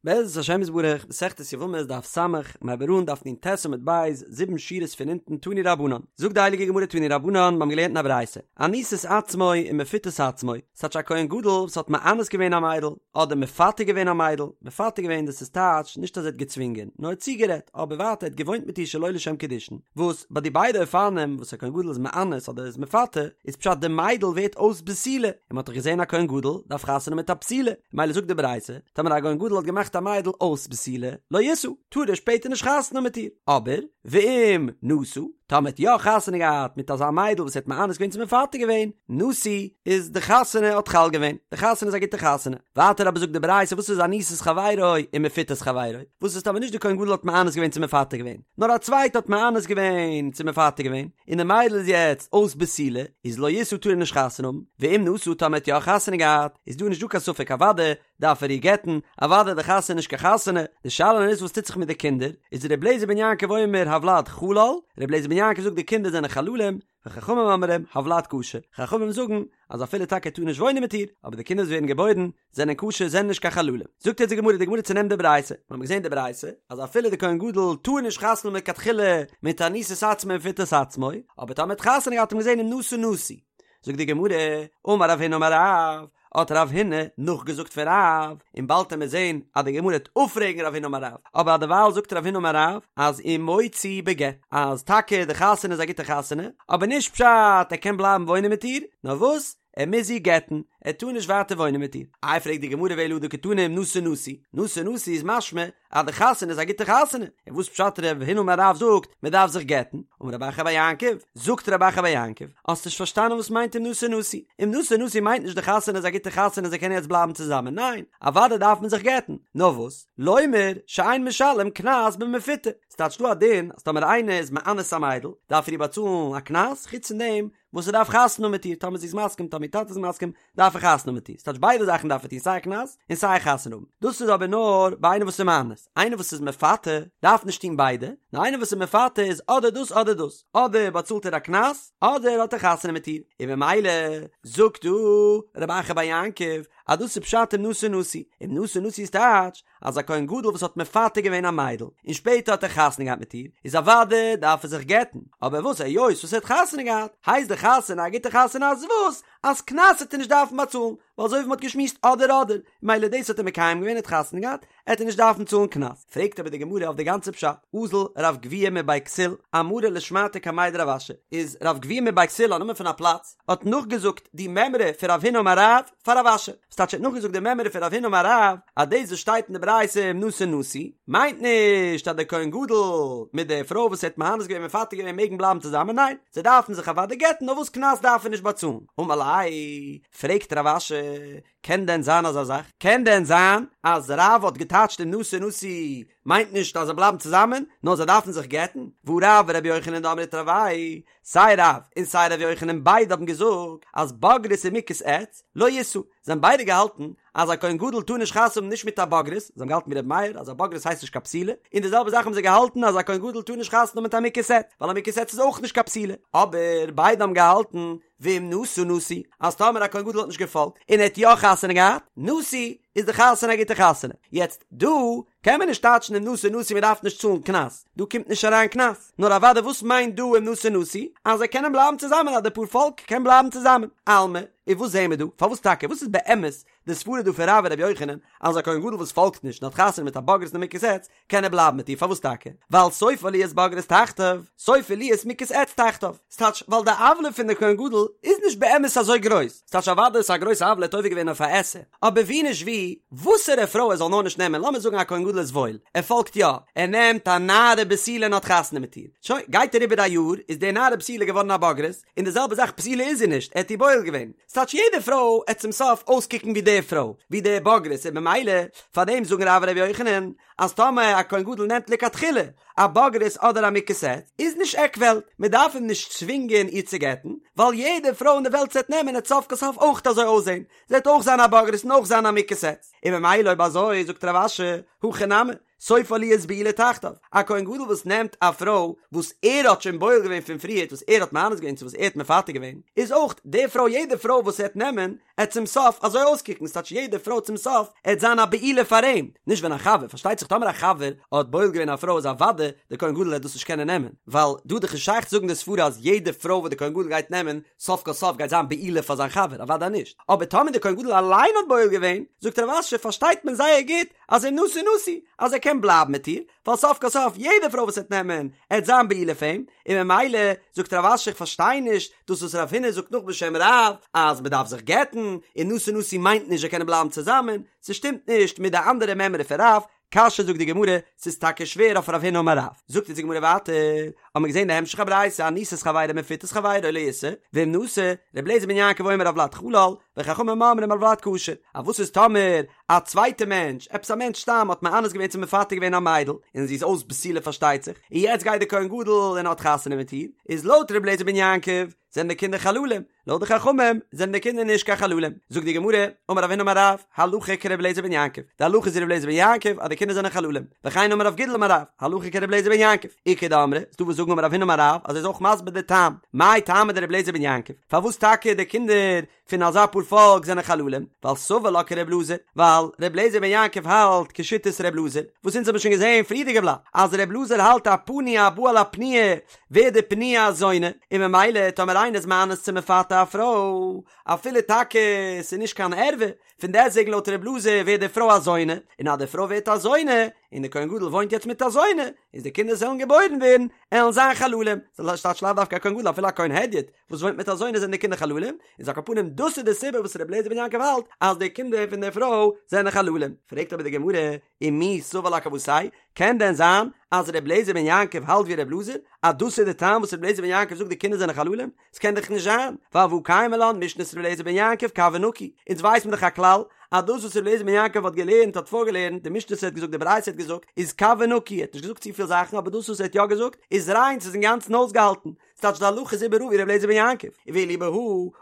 בעזרת השם יתברך, מסכת יבמות דף ס', מ'הייבט אן דף נ"ט עמוד ב', זיבן שורות פון אונטן תנו רבנן. זאגט די הייליגע גמרא תנו רבנן, מיר האבן געלערנט אין א ברייתא, אנוסת עצמו ומפותת עצמו, ס'טייטש א כהן גדול וואס האט מאנס געווען א מיידל, אדער מפתה געווען א מיידל, מפתה געווען דאס איז טייטש נישט אז ער האט געצווינגען, נאר ער האט צוגערעדט, אבער ווייטער ער האט געוואוינט מיט איר שלא לשם קידושין, וואס ביי די ביידע אופנים וואס א כהן גדול איז מאנס אדער איז מפתה, איז פשט די מיידל ווערט אויס בתולה, און מ'האט דאך געזען א כהן גדול דארף חתונה מיט א בתולה, מילא זאגט די ברייתא, טאמער א כהן גדול האט געמאכט א מיידל אויס בתולה, לא ישא, טאר ער שפעטער נישט חתונה האבן מיט איר, אבער, ואם נשא, טאמער האט יא חתונה געהאט מיט אזא מיידל וואס ער האט מאנס געווען צו מפתה געווען, נשוי, איז די חתונה האט חל געווען, די חתונה איז א גוטע חתונה. ווייטער אבער זאגט די ברייתא וואס איז אנוסת חברו ומפותת חברו, וואס איז טאמער נישט די כהן גדול האט מאנס געווען צו מפתה געווען, נאר א צווייטע האט מאנס געווען צו מפתה געווען, און די מיידל איז יעצט אויס בתולה, איז לא ישא טאר ער נישט חתונה האבן, ואם נשא טאמער האט יא חתונה געהאט, איז דא נישט דא קיין ספק אוודאי דארף ער איר גט'ן, אוודאי די חתונה איז נישט קיין חתונה, די שאלה איז וואס טוט זיך מיט די קינדער, איז ר' אליעזר בן יעקב אומר הולד חלל, ר' אליעזר בן יעקב זאגט די קינדער זענען חללים, וחכמים אומרים הולד כשר, חכמים זאגן אז אפילו טאקע ער טאר נישט וואוינען מיט איר, אבער די קינדער וואס ווערן געבוירן זענען כשר זענען נישט קיין חללים. זאגט יעצט די גמרא, די גמרא צונעמט די ברייתא, מיר האבן געזען די ברייתא אז אפילו די כהן גדול טאר נישט חתונה האבן לכתחילה מיט אנוסת עצמו ומפותת עצמו, אבער טאמער האט חתונה געהאט האט מען געזען אם נשא נשוי. זאגט די גמרא, אמר רב הונא אמר רב, האט רב הונא נאכגעזאגט פון רב, און באלד וועט מען זען אז די גמרא וועט אפפרעגן רב הונא אמר רב, אבער דערווייל זאגט רב הונא אמר רב אז ומוציא בגט, אז טאקע די חתונה איז א גוטע חתונה, אבער נישט פשט ער קען בלייבן וואוינען מיט איר, נאר וואס, ער מוז איר גט'ן, ער טאר נישט ווייטער וואוינען מיט איר. איי פרעגט די גמרא ואלא הא דקתני אם נשא נשוי, נשא נשוי איז משמע אז די חתונה איז א גוטע חתונה, און וואס פשט רב הונא אמר רב זאגט מען דארף זיך גט'ן? אמר רב אחא בר יעקב, זאגט רב אחא בר יעקב, האסט נישט פארשטאנען וואס מיינט אם נשא נשוי, אם נשא נשוי מיינט נישט די חתונה איז א גוטע חתונה זיי קענען יעצט בלייבן צוזאמען, ניין, אוודאי דארף מען זיך גט'ן, נאר וואס, לומר שאין משלם קנס במפותה, ס'טייטש דא א דין אז טאמער איינער איז מאנס א מיידל דארף ער איר באצאלן א קנס, חוץ פון דעם וואס ער דארף חתונה האבן מיט איר, טאמער זי איז מסכים, טאמער איר טאטע איז מסכים, דארף ער חתונה האבן מיט איר, ס'טייטש ביידע זאכן דארף ער טון סיי קנס און סיי חתונה האבן, דאס איז אבער נאר ביי איינער וואס איז מאנס, איינער וואס איז מפתה דארף נישט טון ביידע, נאר איינער וואס איז מפתה איז אדער דאס אדער דאס, אדער באצאלט ער א קנס אדער האט ער חתונה מיט איר, און במילא זאגט דא רב אחא בר יעקב אז דאס איז פשט אם נשא נשוי, אם נשא נשוי איז טייטש אז א כהן גדול וואס האט מפתה געווען א מיידל און שפעטער האט ער חתונה געהאט מיט איר, איז אוודאי דארף ער זיך גט'ן, אבער וואס היות וואס ער האט חתונה געהאט, הייסט די חתונה א גוטע חתונה אז וואס? אז קנס וועט ער נישט דארפן באצאלן, ווייל אזוי ווי מ'האט געשמועסט אדער אדער, מילא דאס האט ער מקיים געווען ער האט חתונה געהאט, עט ער נישט דארפן צאלן קנס. פרעגט אבער די גמרא אויף די גאנצע פשט, אזל רב גביהה מבי כסיל, אמרה לשמעתיה קמיה דרב אשי, איז רב גביהה מבי כסיל א נאמען פון א פלאץ, האט נאכגעזאגט די מימרא פון רב הונא אמר רב פאר רב אשי, ס'טייטש ער האט נאכגעזאגט די מימרא פון רב הונא אמר רב, אז דאס וואס שטייט אין די ברייתא אם נשא נשוי, מיינט נישט אז דער כהן גדול מיט די פרוי וואס ער האט מאנס געווען מפתה געווען מעגן בלייבן צוזאמען, ניין, זיי דארפן זיך אוודאי גט'ן, נאר וואס קנס דארף ער נישט באצאלן. אמר ליה, פרעגט רב אשי, קען דען זיין אזא זאך? קען דען זיין אז רב האט געטייטשט אם נשא נשוי מיינט נישט אז זיי בלייבן צוזאמען, נאר זיי דארפן זיך גט'ן? והא רב ורבי יוחנן דאמרי תרוייהו סיי רב און סיי ר' יוחנן ביידע האבן געזאגט אז בוגרת ומוכת עץ לא ישא, זיי האבן ביידע געהאלטן אז א כהן גדול טאר נישט חתונה האבן נישט מיט א בוגרת, זיי האבן געהאלטן ווי ר' מאיר אז א בוגרת הייסט נישט קיין בתולה, און די זעלבע זאך האבן זיי געהאלטן אז א כהן גדול טאר נישט חתונה האבן מיט א מוכת עץ, ווייל א מוכת עץ איז אויך נישט קיין בתולה, אבער ביידע האבן געהאלטן ואם נשא נשוי אז טאמער א כהן גדול האט נישט געפאלגט און ער האט יא חתונה געהאט, נשוי איז די חתונה א גוטע חתונה, יעצט דא קען מען נישט טייטשן אם נשא נשוי מען דארף נישט צאלן קנס, דא קומט נישט אריין קנס, נאר אוודאי וואס מיינט דא אם נשא נשוי? אז זיי קענען בלייבן צוזאמען אז די פאר פאלק קען בלייבן צוזאמען, אלמא, און וואס זעהן מיר דא? פארוואס טאקע? וואס איז באמת די סברה דא פון רב און רבי יוחנן אז א כהן גדול וואס פאלגט נישט און האט חתונה מיט א בוגרת און א מוכת עץ קען ער בלייבן מיט איר פארוואס טאקע? ווייל סופה להיות בוגרת תחתיו, סופה להיות מוכת עץ תחתיו, ס'טייטש ווייל די עוולה פון די כהן גדול איז נישט באמת אזוי גרויס, ס'טייטש אוודאי איז א גרויסע עוולה האט עובר געווען אויף א עשה, אבער ווי נישט ווי, וואסערע פרוי ער זאל נאר נישט נעמען, לאמיר זאגן א כהן גדול איז וואויל, ער פאלגט יא, ער נעמט א נערה בתולה און האט חתונה מיט איר, שוין, גייט אריבער א יאר, איז די נערה בתולה געווארן א בוגרת, און די זעלבע זאך בתולה איז זי נישט, ער האט איר בועל געווען, ס'טייטש יעדע פרוי עט צום סוף אויסקוקן ווי די פרוי, ווי די בוגרת, און במילא, פארדעם זאגן רב און רבי יוחנן, אז טאמער א כהן גדול נעמט לכתחילה. א בוגרת אדער א מוכת עץ, איז נישט עק וועלט, מען דארף אים נישט צווינגען איר צו גט'ן, ווייל יעדע פרוי אין די וועלט וואס ער וועט נעמען עט סוף כל סוף אויך אזוי אויסזען, זי וועט אויך זיין א בוגרת און אויך זיין א מוכת עץ, און ממילא אויב אזוי זאגט רב אשי, הכי נמי, סופה להיות בעולה תחתיו, א כהן גדול וואס נעמט א פרוי וואס ער האט שוין בועל געווען פון פריערט וואס ער האט מאנס געווען צו וואס ער האט מפתה געווען, איז אויך די פרוי יעדע פרוי וואס ער וועט נעמען עט צום סוף אזוי אויסקוקן, ס'טייטש יעדע פרוי צום סוף עט זיין א בעולה פאר אים, נישט ווען א חבר, פארשטייט זיך טאמער א חבר האט בועל געווען א פרוי איז אוודאי די כהן גדול עט דאס נישט קענען נעמען, ווייל דא איז דאך נישט שייך צו זאגן די סברה אז יעדע פרוי וואס די כהן גדול גייט נעמען סוף כל סוף גייט זיין בעולה פאר זיין חבר, אוודאי נישט, אבער טאמער די כהן גדול אליין האט בועל געווען, זאגט רב אשי פארשטייט מען זייער גוט אז אם נשא נשוי, אז ער קען בלייבן מיט איר, ווייל סוף כל סוף יעדע פרוי וואס ער וועט נעמען, עט זיין בעולה פאר אים, און ממילא זאגט רב אשי איך פארשטיי נישט דאס וואס רב הונא זאגט נאך בשם רב אז מען דארף זיך גט'ן, און נשא נשוי מיינט נישט זיי קענען בלייבן צוזאמען, ס'שטימט נישט מיט די אנדערע מימרא פון רב, קשיא זאגט די גמרא, ס'איז טאקע שווער אויף רב הונא אמר רב, זאגט אונז די גמרא ווייטער, האבן מיר געזען די המשך הברייתא אנוסת חברו ומפותת חברו לא ישא, ואם נשא, ר' אליעזר בן יעקב אומר הולד חלל, וחכמים אומרים הולד כשר, א וואס איז טאמער א צווייטע מענטש, עפעס א מענטש סתם האט מאנס געווען צו מפתה געווען א מיידל, און זי איז אויס בתולה פארשטייט זיך, און יעצט גייט די כהן גדול און האט חתונה מיט איר, איז לויט ר' אליעזר בן יעקב זענען די קינדער חללים, לויט די חכמים זענען די קינדער נישט קיין חללים. זאגט די גמרא, אמר רב הונא אמר רב, הלכה כר' אליעזר בן יעקב, די הלכה איז ווי ר' אליעזר בן יעקב אז די קינדער זענען חללים, וכן אמר רב גידל אמר רב, הלכה כר' אליעזר בן יעקב, איכא דאמרי, ס'דא וואס זאגן אמר רב הונא אמר רב אז ער איז אויך מסביר די טעם, מאי טעמא דר' אליעזר בן יעקב, פארוואס טאקע די קינדער פון אזא פאר פאלק זענען חללים, ווייל סבר לה כר' אלעזר, ווייל ר' אליעזר בן יעקב האלט כשיטת ר' אלעזר, וואס אונז האבן שוין געזען פריערדיגע בלאט, אז ר' אלעזר האלט א פנוי הבא על הפנויה ווערט די פנויה א זונה, און ממילא טאמער איינער איז מאנס צו מפתה א פרוי, אפילו טאקע ס'איז נישט קיין ערווה, פון דעסטוועגן לויט ר' אלעזר ווערט די פרוי א זונה, און אז די פרוי ווערט א זונה, און די כהן גדול וואוינט יעצט מיט א זונה, איז די קינדער וואס וועלן געבוירן ווערן, עלן זיין חללים, ס'טייטש לאו דווקא א כהן גדול אפילו א כהן הדיוט, וואס וואוינט מיט א זונה זענען די קינדער חללים, איז על כל פנים דאס איז די סיבה וואס ר' אליעזר בן יעקב האלט אז די קינדער פון די פרוי זענען חללים. פרעגט אבער די גמרא, ומי סבר לה כוותיה, קען דען זיין אז ר' אליעזר בן יעקב האלט ווי ר' אלעזר, אז דאס איז די טעם וואס ר' אליעזר בן יעקב זאגט די קינדער זענען חללים? ס'קען דאך נישט זיין, ווייל והא קיימא לן משנת ר' אליעזר בן יעקב קב ונקי, אונז ווייסט מען דאך א כלל אז דאס וואס ר' אליעזר בן יעקב האט געלערנט האט פארגעלערנט, די משנה וואס ער האט געזאגט די ברייתא האט געזאגט, איז קב ונקי, ער האט נישט געזאגט צופיל זאכן אבער דאס וואס ער האט יא געזאגט איז ריין ס'איז אינגאנצן אויסגעהאלטן, ס'טייטש די הלכה איז איבעראל ווי ר' אליעזר בן יעקב, ואליבא הא,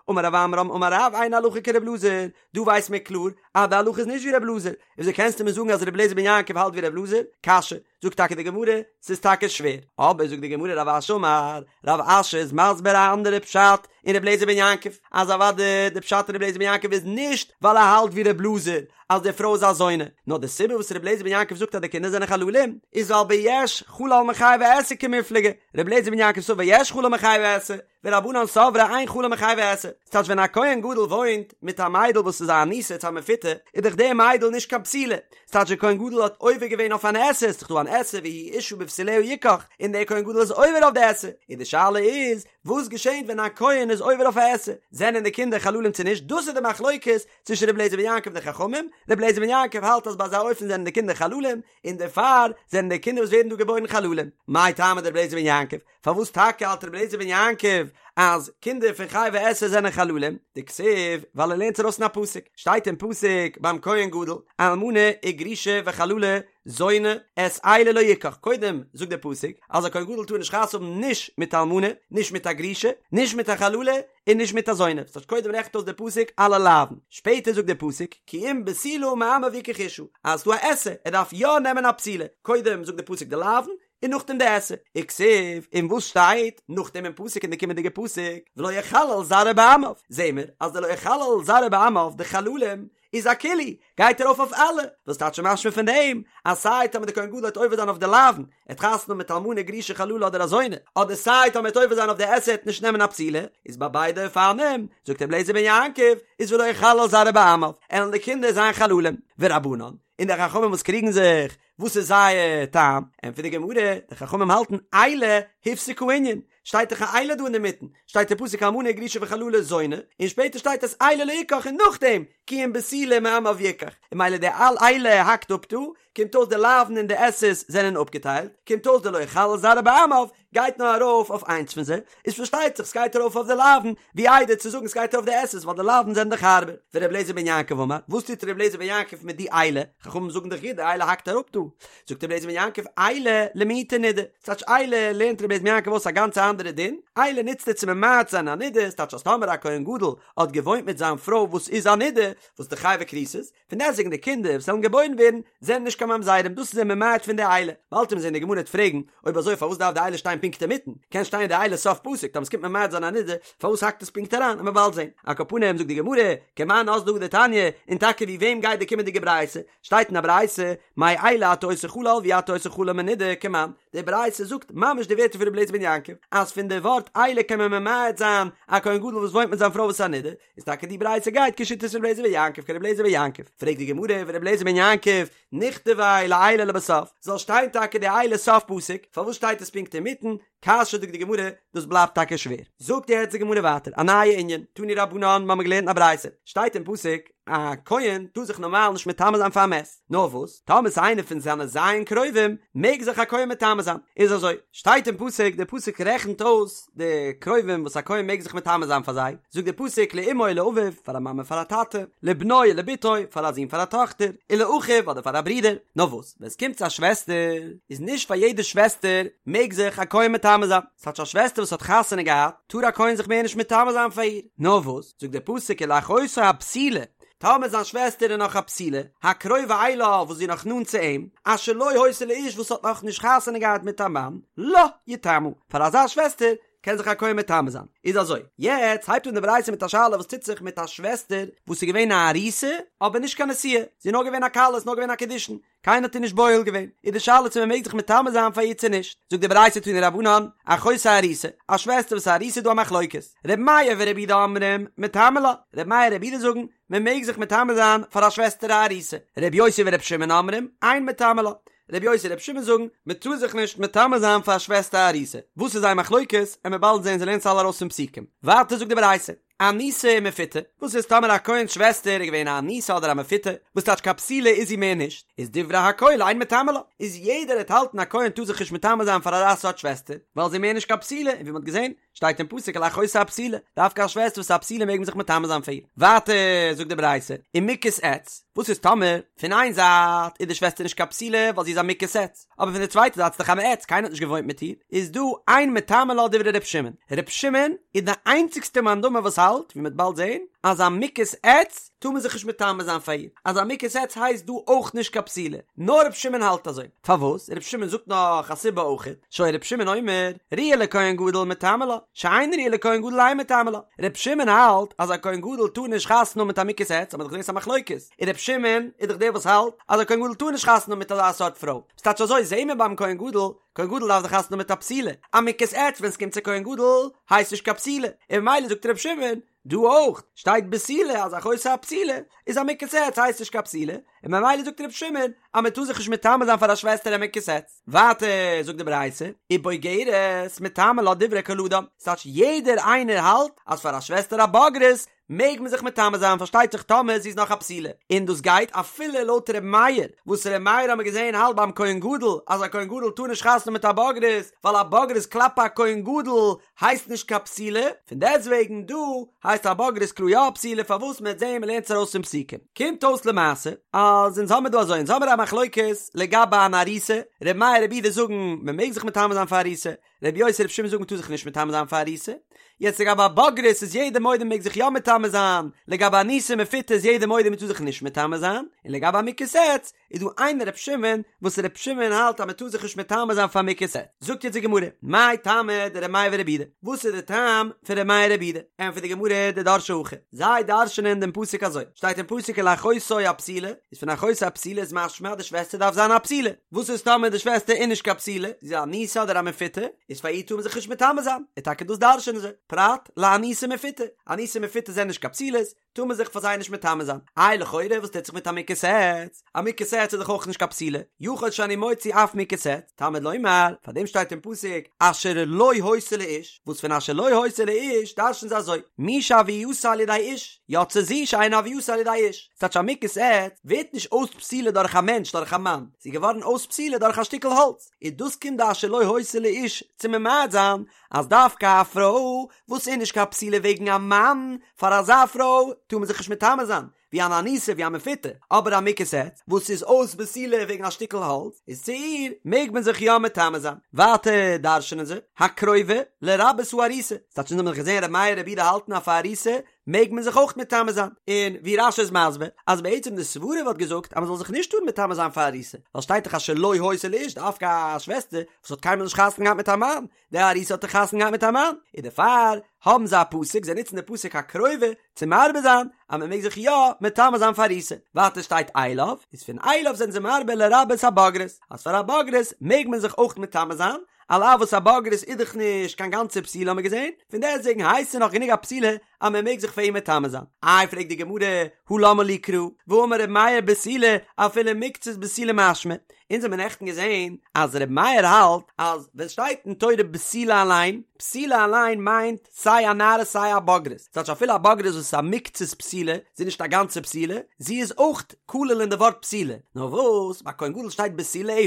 אמר רב עמרם אמר רב אין הלכה כר' אלעזר, דא ווייסט מען קלאר אז די הלכה איז נישט ווי ר' אלעזר, וויאזוי קענסטו מיר זאגן אז ר' אליעזר בן יעקב האלט ווי ר' אלעזר? קשיא, זאגט טאקע די גמרא, ס'איז טאקע שווער, אבער זאגט די גמרא רב אשי אמר, רב אשי איז מסביר א אנדערע פשט אין ר' אליעזר בן יעקב, אז אוודאי די פשט אין ר' אליעזר בן יעקב איז נישט ווייל ער האלט ווי ר' אלעזר אז די פרוי איז א זונה, נאר די סיבה וואס ר' אליעזר בן יעקב זאגט אז די קינדער זענען חללים איז ווייל ביש חלל מחייבי עשה קמיפלגי, ר' אליעזר בן יעקב סבר יש חלל מחייבי עשה, ורבנן סברי אין חלל מחייבי עשה, ס'טייטש ווען א כהן גדול וואוינט מיט א מיידל וואס איז א אנוסה צו א מפותה, איז דאך די מיידל נישט קיין בתולה, ס'טייטש דער כהן גדול האט עובר געווען אויף אן עשה, ס'איז דאך דא אן עשה והוא אשה בבתוליה יקח, און דער כהן גדול איז עובר אויף די עשה, און די שאלה איז, וואס געשענט ווען א כהן איז עובר אויף א עשה, זענען די קינדער חללים צו נישט, דאס איז די מחלוקת צווישן רבי אליעזר בן יעקב און די חכמים, רבי אליעזר בן יעקב האלט אז ביי אזא אופן זענען די קינדער חללים, און דערפאר זענען די קינדער וואס ווערן דא געבוירן חללים. מאי טעמא דרבי אליעזר בן יעקב? פארוואס טאקע האלט רבי אליעזר בן יעקב אז קינדער פון חייבי עשה זענען חללים? דכתיב, ווייל ער לערנט ארויס אין א פסוק, שטייט אין פסוק ביים כהן גדול, אלמנה וגרושה וחללה זונה את אלה לא יקח, קודם זאגט דער פסוק אז א כהן גדול טאר נישט חתונה האבן נישט מיט אלמנה, נישט מיט א גרושה, נישט מיט א חללה, און נישט מיט א זונה, ס'טייטש קודם רעכנט אויס דער פסוק אלע לאווין, שפעטער זאגט דער פסוק כי אם בתולה מעמיו יקח אשה, אז ס'דא א עשה, ער דארף יא נעמען א בתולה, קודם זאגט דער פסוק די לאווין, און נאכדעם די עשה, וכתיב, און וואס שטייט נאכדעם אין פסוק אין די קומענדיגע פסוק, ולא יחלל זרעו בעמיו, זעהן מיר אז די לא יחלל זרעו בעמיו די חללים איז אכולהו, גייט ארויף אויף אלע, וואס טייטש משמע פון דעם אז סיי טאמער די כהן גדול וועט עובר זיין אויף די לאווין, ער האט חתונה מיט אלמנה גרושה חללה אדער א זונה, אדער סיי טאמער ער וועט עובר זיין אויף די עשה ער וועט נישט נעמען א בתולה, איז ביי ביידע אופנים, זאגט רבי אליעזר בן יעקב, איז ולא יחלל זרעו בעמיו, עלן די קינדער זיין חללים, ורבנן, און די חכמים וואס קריגן זיך, וואס איז זייער טעם? ענטפערט די גמרא, די חכמים האלטן אלה הפסיק הענין, שטייט דאך א אלה דא אינדערמיטן, שטייט אין פסוק אלמנה גרושה וחללה זונה, און שפעטער שטייט את אלה לא יקח און נאכדעם כי אם בתולה מעמיו יקח, און ממילא די אל אלה האקט אפ דא, קומט אויס די לאוין און די עשה'ס זענען אפגעטיילט, קומט אויס די לא יחלל זרעו בעמיו גייט נאר ארויף אויף איינס פון זיי, איז פארשטייט זיך סגייט ארויף אויף די לאוין, ווי איידער צו זאגן סגייט ארויף די עשה'ס ווייל די לאוין זענען דאך הארבער. ור' אליעזר בן יעקב אמר, וואס טוט ר' אליעזר בן יעקב מיט די אלה? חכמים זאגן דאך גוט די אלה האקט אראפ דא. זאגט ר' אליעזר בן יעקב אלה למעוטי נידה, ס'טייטש אלה לערנט ר' אליעזר בן יעקב אויס א גאנצע אנדערע דין, אלה נוצט ער צו ממעט זיין א נידה, ס'טייטש אז טאמער א כהן גדול האט געוואוינט מיט זיין פרוי וואס איז א נידה, וואס איז חייבי כריתות, פון דעסטוועגן די קינדער וואס וועלן געבוירן ווערן זענען נישט קיין ממזרים, דאס איז ער ממעט פון די אלה. באלד וועט מען זען די גמרא וועט פרעגן, אויב אזוי פארוואס דארף די אלה שטיין פונקט אינמיטן? קען שטיין די אלה סוף פסוק, טאמער ס'קומט ממעט זיין א נידה, פארוואס האקט עס פונקט אריין? עמיר באלד זען. על כל פנים זאגט די גמרא, כמאן אזלא הא דתניא, און טאקע ווי וועם גייט די קומענדיגע ברייתא? שטייט אין א ברייתא, מאלה אתה עושה חלל ואי אתה עושה חלל מנידה, כמאן? די ברייתא זאגט ממש די ווערטער פון רבי אליעזר בן יעקב, אז פון די ווארט אלה קען מען ממעט זיין א כהן גדול וואס וואוינט מיט זיין פרוי וואס איז א נידה, איז טאקע די ברייתא גייט כשיטת רבי אליעזר בן יעקב כרבי אליעזר בן יעקב, פרעגט די גמרא ורבי אליעזר בן יעקב נכתביה לאלה לבסוף, זאל שטיין טאקע די אלה סוף פסוק, פארוואס שטייט עס פונקט אינמיטן, קשיא זאגט די גמרא, דאס בלייבט טאקע שווער. זאגט יעצט די גמרא ווייטער א נייע ענין, תנו רבנן, מ'האמיר געלערנט אין א ברייתא, שטייט אין פסוק, א כהן טאר זיך נארמאל נישט מטמא זיין פאר א מת, נאר וואס, טאמער ס'איז איינער פון זיינע ז' קרובים, מעג זיך א כהן מטמא זיין. איז אזוי, שטייט אין פסוק, דער פסוק רעכנט אויס די קרובים וואס א כהן מעג זיך מטמא זיין פאר זיי, זאגט דער פסוק לאמו ולאביו, פאר א מאמע פאר א טאטע, לבנו ולבתו, פאר א זון פאר א טאכטער, ולאחיו אדער פאר א ברודער. נאר וואס, ווען עס קומט צו א שוועסטער, איז נישט פאר יעדע שוועסטער מעג זיך א כהן מטמא זיין. ס'טייטש א שוועסטער וואס האט חתונה געהאט, טאר א כהן זיך מער נישט מטמא זיין פאר איר. נאר וואס, זאגט דער פסוק ולאחותו הבתולה, טאמער זיין שוועסטער איז נאך א בתולה, הקרובה אליו וואס זי איז נאך נאנט צו אים, אשר לא היתה לאיש וואס האט נאך נישט חתונה געהאט מיט א מאן, לה יטמא, פאר אזא שוועסטער קען זיך א כהן מטמא זיין. איז אזוי, יעצט הייבט אן די ברייתא מיט א שאלה וואס טוט זיך מיט א שוועסטער וואס איז געווען א ארוסה אבער נישט קיין נשואה, זי איז נאר געווען א כלה, איז נאר געווען א קידושין, קיינער האט איר נישט בועל געווען, איז די שאלה צו מען מעג זיך מטמא זיין פאר איר צו נישט, זאגט די ברייתא תנו רבנן, אחותו ארוסה, א שוועסטער וואס איז ארוסה איז דא א מחלוקת, ר' מאיר ור' יהודה אומרים, מטמא לה, ר' מאיר ר' יהודה זאגן, מען מעג זיך מטמא זיין פאר א שוועסטער א ארוסה, ר' יוסי ור' שמעון אומרים, אין מטמא לה, ר' יוסי ר' שמעון זאגן, מען טאר זיך נישט מטמא זיין פאר א שוועסטער א ארוסה, וואס איז זייער מחלוקת, עמיר באלד זען זיי לערנען עס אלע ארויס פון פסוקים, ווייטער זאגט די ברייתא, אנוסה ומפותה, וואס איז טאמער א כהן'ס שוועסטער איז געווען א אנוסה אדער א מפותה, וואס טייטש קיין בתולה איז זי מער נישט, איז דברי הכל אין מטמא לה, איז יעדער העט האלטן א כהן טאר זיך נישט מטמא זיין פאר אזא סארט שוועסטער, ווייל זי איז מער נישט קיין בתולה, און ווי מ'האט געזען, שטייט אין פסוק ולאחותו הבתולה, דווקא א שוועסטער וואס איז א בתולה מעג מען זיך מטמא זיין פאר איר. ווייטער זאגט די ברייתא, ומוכת עץ, וואס איז טאמער, פון איין זייט איז די שוועסטער נישט קיין בתולה ווייל זי איז א מוכת עץ, אבער פון די צווייטע זייט איז דאך א מעץ, קיינער האט נישט געוואוינט מיט איר, איז דא אין מטמא לה דברי ר' שמעון, ר' שמעון איז די איינציגסטע מאן דאמר וואס האלט, ווי מ'וועט באלד זען, אז א מוכת עץ טאר מען זיך נישט מטמא זיין פאר איר, אז א מוכת עץ הייסט דא אויך נישט קיין בתולה, נאר ר' שמעון האלט אזוי, פארוואס? ר' שמעון זאגט נאך א סיבה אויך, שהיה ר' שמעון אומר, ראויה לכהן גדול מטמא לה, שאינה ראויה לכהן גדול אין מטמא לה, ר' שמעון האלט אז א כהן גדול טאר נישט חתונה האבן מיט א מוכת עץ, האט מען דאך געזען ס'איז א מחלוקת, און ר' שמעון איז דאך דער וואס האלט אז א כהן גדול טאר נישט חתונה האבן מיט אזא סארט פרוי, ס'טייטש אזוי זעהן מיר ביים כהן גדול, כהן גדול דארף דאך חתונה האבן מיט א בתולה, א מוכת עץ ווען ס'קומט צו כהן גדול הייסט נישט קיין בתולה, און ממילא זאגט ר' שמעון דא אויך שטייט בתולה אז אחותו הבתולה איז א מוכת עץ הייסט נישט קיין בתולה, און ממילא זאגט ר' שמעון אז מען טאר זיך נישט מטמא זיין פאר א שוועסטער א מוכת עץ. ווייטער זאגט די ברייתא, ובוגרת מטמא לה דברי כל אדם, ס'טייטש יעדער איינער האלט אז פאר א שוועסטער א בוגרת מעג מען זיך מטמא זיין פארשטייט זיך טאמער זי איז נאך א בתולה, און דאס גייט אפילו לויט ר' מאיר, וואס ר' מאיר האמיר געזען האלט ביים כהן גדול אז א כהן גדול טאר נישט חתונה האבן מיט א בוגרת ווייל א בוגרת כלפי א כהן גדול הייסט נישט קיין בתולה, פון דעסטוועגן דא הייסט א בוגרת קלאר יא א בתולה פארוואס מען וועט זען מען לערנט עס ארויס פון פסוקים קומט אויס למעשה אז אונז האמיר דא אזוי אונז האמיר א מחלוקת לגבי אן ארוסה, ר' מאיר ר' יהודה זאגן מען מעג זיך מטמא זיין פאר ארוסה, רבי יוסי רבי שמעון זאגן מ'טאר זיך נישט מטמא זיין פאר ארוסה, יעצט לגבי א בוגרת איז יעדער מודה מ'מעג זיך יא מטמא זיין, לגבי אנוסה מפותה איז יעדער מודה מ'טאר זיך נישט מטמא זיין, און לגבי א מוכת עץ איז דא איין רבי שמעון וואס רבי שמעון האלט אז מ'טאר זיך נישט מטמא זיין פאר מוכת עץ, זאגט יעצט די גמרא, מאי טעמא דרבי מאיר ורבי יהודה, וואס איז די טעם פון רבי מאיר רבי יהודה, ענטפערט די גמרא דדרשי הכי, זיי דרש'נען דעם פסוק אזוי, שטייט אין פסוק ולאחותו הבתולה, איז פון אחותו הבתולה איז משמע אז די שוועסטער דארף זיין א בתולה, וואס איז טאמער די שוועסטער איז נישט קיין בתולה, זי איז א אנוסה אדער א מפותה, איז פאר איר טאר מען זיך נישט מטמא זיין, און טאקע דאס דרש'נען זיי, פרט לאנוסה ומפותה, אנוסה ומפותה זענען נישט קיין בתולות, טאר מען זיך פאר זיי נישט מטמא זיין, איי לכאורה וואס טוט זיך מיט א מוכת עץ, א מוכת עץ. עץ איז דאך אויך נישט קיין בתולה, יכול שאני מוציא אף מוכת עץ, תלמוד לומר, פאר דעם שטייט אין פסוק אשר לא היתה לאיש, וואס פון אשר לא היתה לאיש דרש'ן זיי אזוי, מי שהוייתה על ידי איש, יצא זו שאין הוייתה על ידי איש, ס'טייטש א מוכת עץ ווערט נישט אויס בתולה דורך א מענטש דורך א מאן, זי איז געווארן אויס בתולה דורך א שטיקל האלץ, און דאס קומט די אשר לא היתה לאיש צו ממעט זיין אז דווקא א פרוי וואס איז נישט קיין בתולה וועגן א מאן, פאר אזא פרוי טאר מען זיך נישט מטמא זיין, ווי אן אנוסה ווי א מפותה, אבער א מוכת עץ וואס איז אויס בתולה וועגן א שטיקל האלץ, איז צו איר מעג מען זיך יא מטמא זיין. ווייטער דרש'נען זיי, הקרובה לרבות הארוסה, ס'טייטש אונז האבן דאך געזען ר' מאיר ר' יהודה האלטן אז פאר ארוסה מעג מען זיך אויך מטמא זיין, און ווי רש"י איז מסביר אז בעצם די סברה וואלט געזאגט אז מען זאל זיך נישט טארן מטמא זיין פאר ארוסה, ווייל שטייט דאך אשר לא היתה לאיש דווקא א שוועסטער וואס האט קיינמאל נישט חתונה געהאט מיט א מאן, די ארוסה האט דאך חתונה געהאט מיט א מאן, און דערפאר האבן זיי א פסוק, זיי נוצן די פסוק הקרובה צו מרבה זיין אז מען מעג זיך יא מטמא זיין פאר ארוסה. ווייטער שטייט אליו, איז פון אליו זענען זיי מרבה לרבות הבוגרת, אז פאר א בוגרת מעג מען זיך אויך מטמא זיין, על אף וואס א בוגרת איז דאך נישט קיין גאנצע בתולה האבן מיר געזען, פון דעסטוועגן הייסט זי נאך גענוג א בתולה אז מען מעג זיך פאר איר מטמא זיין. איי פרעגט די גמרא, הא למה לי קרא, והאמר ר' מאיר בתולה אפילו מקצת בתולה משמע, אונז האבן נעכטן געזען אז ר' מאיר האלט אז ווען שטייט אין תורה בתולה אליין, בתולה אליין מיינט סיי א נערה סיי א בוגרת, ס'טייטש אפילו א בוגרת וואס איז א מקצת בתולה, זי איז נישט א גאנצע בתולה, זי איז אויך כלול אין די ווארט בתולה, נאר וואס ביי כהן גדול שטייט בתוליה,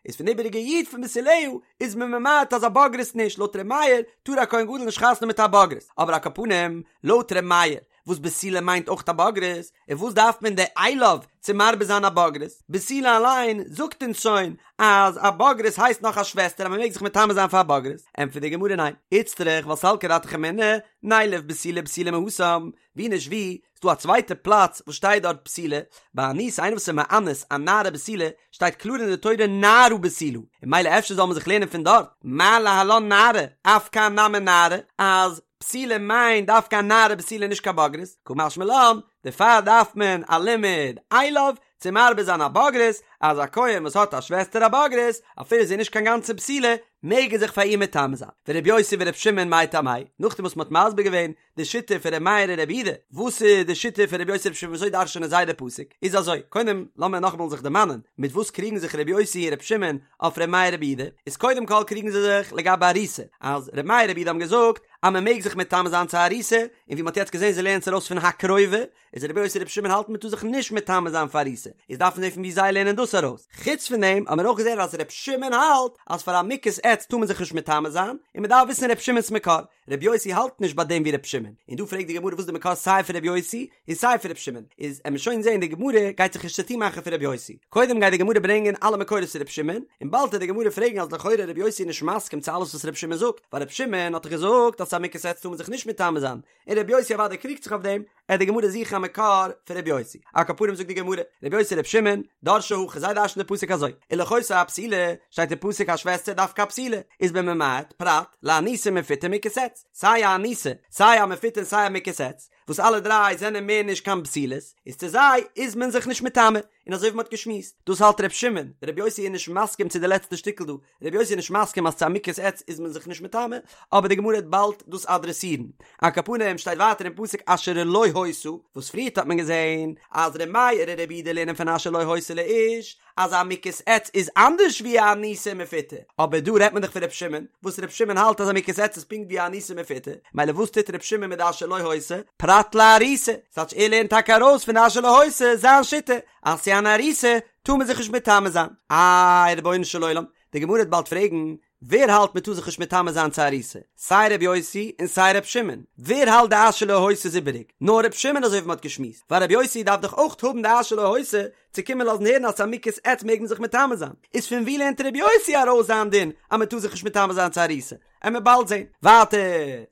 איז פון איבעריגע יו"ד פון בתוליה איז מען ממעט אז א בוגרת נישט, לויט ר' מאיר טאר א כהן גדול נישט חתונה מיט א בוגרת, אבער על כל פנים לויט ר' מאיר וואס בתולה מיינט אויך א בוגרת, און וואס דארף מען די אליו צו מרבה זיין א בוגרת? בתולה אליין זאגט אונז שוין אז א בוגרת הייסט נאך א שוועסטער אז מען מעג זיך מטמא זיין פאר א בוגרת, ענטפערט די גמרא ניין, איצטריך ווייל סלקא דעתך אמינא, נילף בתולה בתולה מהתם, ווי נישט ווי, ס'דא א צווייטע פלאץ וואס שטייט דארט בתולה, ביי אנוסה איינער וואס איז מאנס א נערה בתולה, שטייט קלאר אין די תורה נערה בתולה, און ממילא אפשר זאל מען זיך לערנען פון דארט, מה להלן נערה, אף כאן נמי נערה, אז בתולה מיינט דווקא א נערה בתולה נישט קיין בוגרת, קא משמע לן, דערפאר דארף מען א לימוד אליו צו מרבה זיין א בוגרת, אז א כהן וואס האט א שוועסטער א בוגרת, אפילו זי איז נישט קיין גאנצע בתולה, מעג ער זיך פאר איר מטמא זיין. ורבי יוסי ורבי שמעון מאי טעמייהו, נאכדעם וואס מען האט מסביר געווען די שיטה פון ר' מאיר און ר' יהודה, וואס איז די שיטה פון רבי יוסי רבי שמעון וויאזוי דרש'נען זיי די פסוק, איז אזוי, קודם לאמיר נאכאמאל זיך דערמאנען, מיט וואס קריגן זיך רבי יוסי און רבי שמעון אויף ר' מאיר רבי יהודה, איז קודם כל קריגן זיי זיך לגבי ארוסה, אז ר' מאיר רבי יהודה האבן געזאגט אז מען מעג זיך מטמא זיין צו ארוסה, און ווי מען האט יעצט געזען זיי לערנען עס ארויס פון הקרובה, איז רבי יוסי רבי שמעון האלטן מען טאר זיך נישט מטמא זיין פאר ארוסה, איז דארף מען זען פון ווי זיי לערנען דאס ארויס, חוץ פון דעם האבן מיר אויך געזען אז רבי שמעון האלט אז פאר א מוכת עץ טאר מען זיך נישט מטמא זיין, און מען דארף וויסן רבי שמעון'ס מקור, רבי יוסי האלט נישט ביי דעם ווי רבי שמעון, און דא פרעגט די גמרא וואס איז די מקור סיי פון רבי יוסי און סיי פון רבי שמעון, איז עמיר שוין זעהן די גמרא גייט זיך נישט צוטון מאכן פון רבי יוסי, קודם גייט די גמרא ברענגען אלע מקורות פון רבי שמעון, און באלד וועט די גמרא פרעגן אז לכאורה רבי יוסי איז נישט מסכים צו אלעס וואס רבי שמעון זאגט, ווייל רבי שמעון האט דאך געזאגט אז צו א מוכת עץ טאר מען זיך נישט מטמא זיין, און רבי יוסי אוודאי קריגט זיך אויף דעם, עט די גמרא זוכן א מקור פון רבי יוסי. על כל פנים זאגט די גמרא, רבי יוסי רבי שמעון, דרשי הכי, זיי דרש'ן די פסוק אזוי, ולאחותו הבתולה, שטייט אין פסוק א שוועסטער דווקא א בתולה, איז מען ממעט, פרט, לאנוסה ומפותה ומוכת עץ, סיי א אנוסה, סיי א מפותה און סיי א מוכת עץ, וואס אלע דריי זענען מער נישט קיין בתולות, איז צו זיי איז מען זיך נישט מטמא, און אזוי ווי מען האט געשמועסט, דאס האלט רבי שמעון, רבי יוסי איז נישט מסכים צו די לעצטע שטיקל דא, רבי יוסי איז נישט מסכים אז צו א מוכת עץ איז מען זיך נישט מטמא, אבער די גמרא וועט באלד דאס אדרעסירן. על כל פנים שטייט ווייטער אין פסוק אשר לא היתה, וואס פריערט האט מען געזען אז ר' מאיר און ר' יהודה לערנען פון אשר לא היתה לאיש אז א מוכת עץ איז אנדערש ווי א אנוסה ומפותה, אבער דא רעדט מען דאך פון ר' שמעון, וואס ר' שמעון האלט אז א מוכת עץ איז פונקט ווי א אנוסה ומפותה, מילא וואס טוט ר' שמעון מיט די אשר לא היתה? פרט לארוסה, ס'טייטש ער לערנט טאקע ארויס פון די אשר לא היתה זיין שיטה אז צו אן ארוסה טאר מען זיך נישט מטמא זיין. איי רבונו של עולם, די גמרא וועט באלד פרעגן, ווער האלט מען טאר זיך נישט מטמא זיין צו ארוסה? סיי ר' יוסי און סיי ר' שמעון. ווער האלט די אשר לא היתה איז איבעריג? נאר ר' שמעון אזוי ווי מען האט געשמועסט, ווייל ר' יוסי דארף דאך אויך האבן די אשר לא היתה צו קומען לאזן הערן אז צו א מוכת עץ מעג מען זיך מטמא זיין. איז פון ווי לערנט ר' יוסי ארויס זיין דין אז מען טאר זיך נישט מטמא זיין צו ארוסה? עמיר באלד זען. ווייטער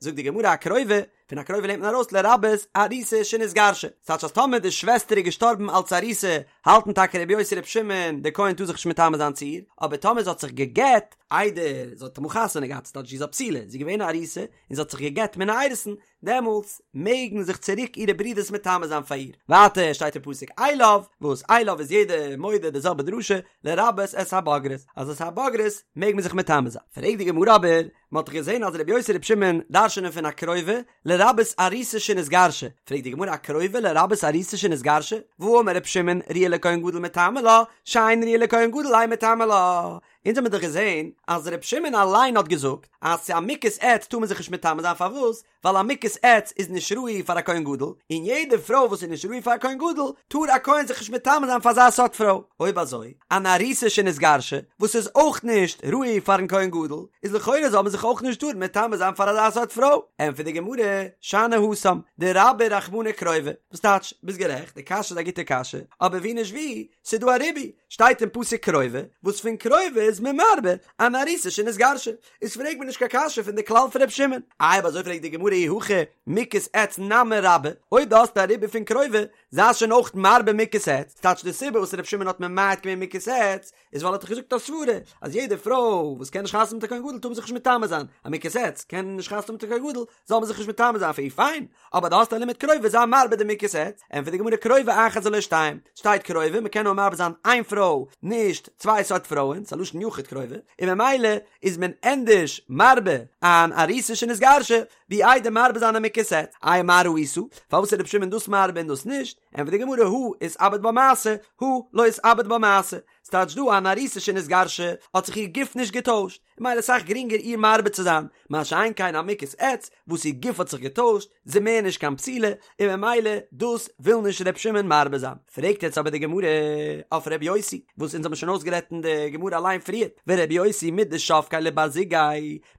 זאגט די גמרא הקרובה, פון הקרובה לערנט מען ארויס לרבות ארוסה שנתגרשה, ס'טייטש אז טאמער די שוועסטער איז געשטארבן אלץ ארוסה, האלטן טאקע רבי יוסי רבי שמעון, דער כהן טאר זיך נישט מטמא זיין צו איר, אבער טאמער זי האט זיך גע'גט איידער זי האט אמאל חתונה געהאט, ס'טייטש זי איז א בתולה, זי איז געווען א ארוסה און זי האט זיך גע'גט מן האירוסין, דעמאלטס מעגן זיך צוריק אירע ברידערס מטמא זיין פאר איר. ווייטער שטייט אין פסוק אליו, וואס אליו איז יעדער מודה די זעלבע דרשה, לרבות את הבוגרת, אז את הבוגרת מעג מען זיך מטמא זיין. פרעגט די גמרא אבער, מען האט דאך געזען אז רבי יוסי רבי שמעון דרש'נען פון הקרובה לרבות ארוסה שנתגרשה, פרעגט די גמרא הקרובה לרבות ארוסה שנתגרשה, והאמר רבי שמעון ראויה. לכהן גדול מטמא לה, שאינה ראויה לכהן גדול אין מטמא לה. אונז האמיר דאך געזען אז ר' שמעון אליין האט געזאגט אז צו א מוכת עץ טאר מען זיך נישט מטמא זיין פארוואס? ווייל א מוכת עץ איז נישט ראוי פאר א כהן גדול, און יעדע פרוי וואס איז נישט ראוי פאר א כהן גדול, טאר א כהן זיך נישט מטמא זיין פאר אזא סארט פרוי. אויב אזוי, אן ארוסה שנתגרשה, וואס איז אויך נישט ראוי פארן כהן גדול, איז לכאורה זאל מען זיך אויך נישט טארן מטמא זיין פאר אזא סארט פרוי. ענטפערט די גמרא, שאני התם, דרבה רחמנא קרובה. וואס טייטש, ביסט גערעכט, די קשיא איז א גוטע קשיא, אבער ווי נישט ווי, ס'איז דא א ריבוי, שטייט אין פסוק קרובה, וואס פון קרובה איז מען מרבה אן ארוסה שנתגרשה. איז פרעג מיר נישט קיין קשיא פון די כלל פון ר' שמעון. איי אויב אזוי פרעגט די גמרא אי הכי מוכת עץ נמי רבה, אויב דו האסט א ריבוי פון קרובה, זיי שוין אויך מרבה מוכת עץ, ס'טייטש די סיבה וואס ר' שמעון האט ממעט געווען מוכת עץ, איז ווייל ער האט דאך געזאגט א סברה אז יעדע פרוי וואס קען נישט חתונה מיט א כהן גדול טאר מען זיך נישט מטמא זיין, א מוכת עץ קען נישט חתונה מיט א כהן גדול, זאל מען זיך נישט מטמא זיין פאר איר, פיין, אבער דו האסט א לימוד קרובה זיי מרבה די מוכת עץ, ענטפערט די גמרא קרובה אחת ולא שתיים, שטייט קרובה מען קען נאר מרבה זיין איין פרוי נישט צוויי סארט פרויען, ס'איז א לשון יחיד קרובה, און ממילא איז מען ענדערש מרבה אן ארוסה שנתגרשה ווי איידער מרבה זיין א מוכת עץ, איי מה ראית, פארוואס איז רבי שמעון דאס מרבה און דאס נישט, ענטפערט די גמרא הא איתעביד בה מעשה, הא לא איתעביד בה מעשה, ס'טייטש דא אן ארוסה שנתגרשה האט זיך איר גוף נישט געטוישט, און ממילא אסאך גרינגער איר מרבה צו זיין, מה שאין כן א מוכת עץ וואס איר גוף האט זיך געטוישט, זי מער נישט קיין בתולה, און ממילא דאס וויל נישט ר' שמעון מרבה זיין. פרעגט יעצט אבער די גמרא אויף ר' יוסי, וואס אונז האבן שוין אויסגערעדט אין די גמרא אליין פריער, ור' יוסי מדשבקיה לבר זוגיה,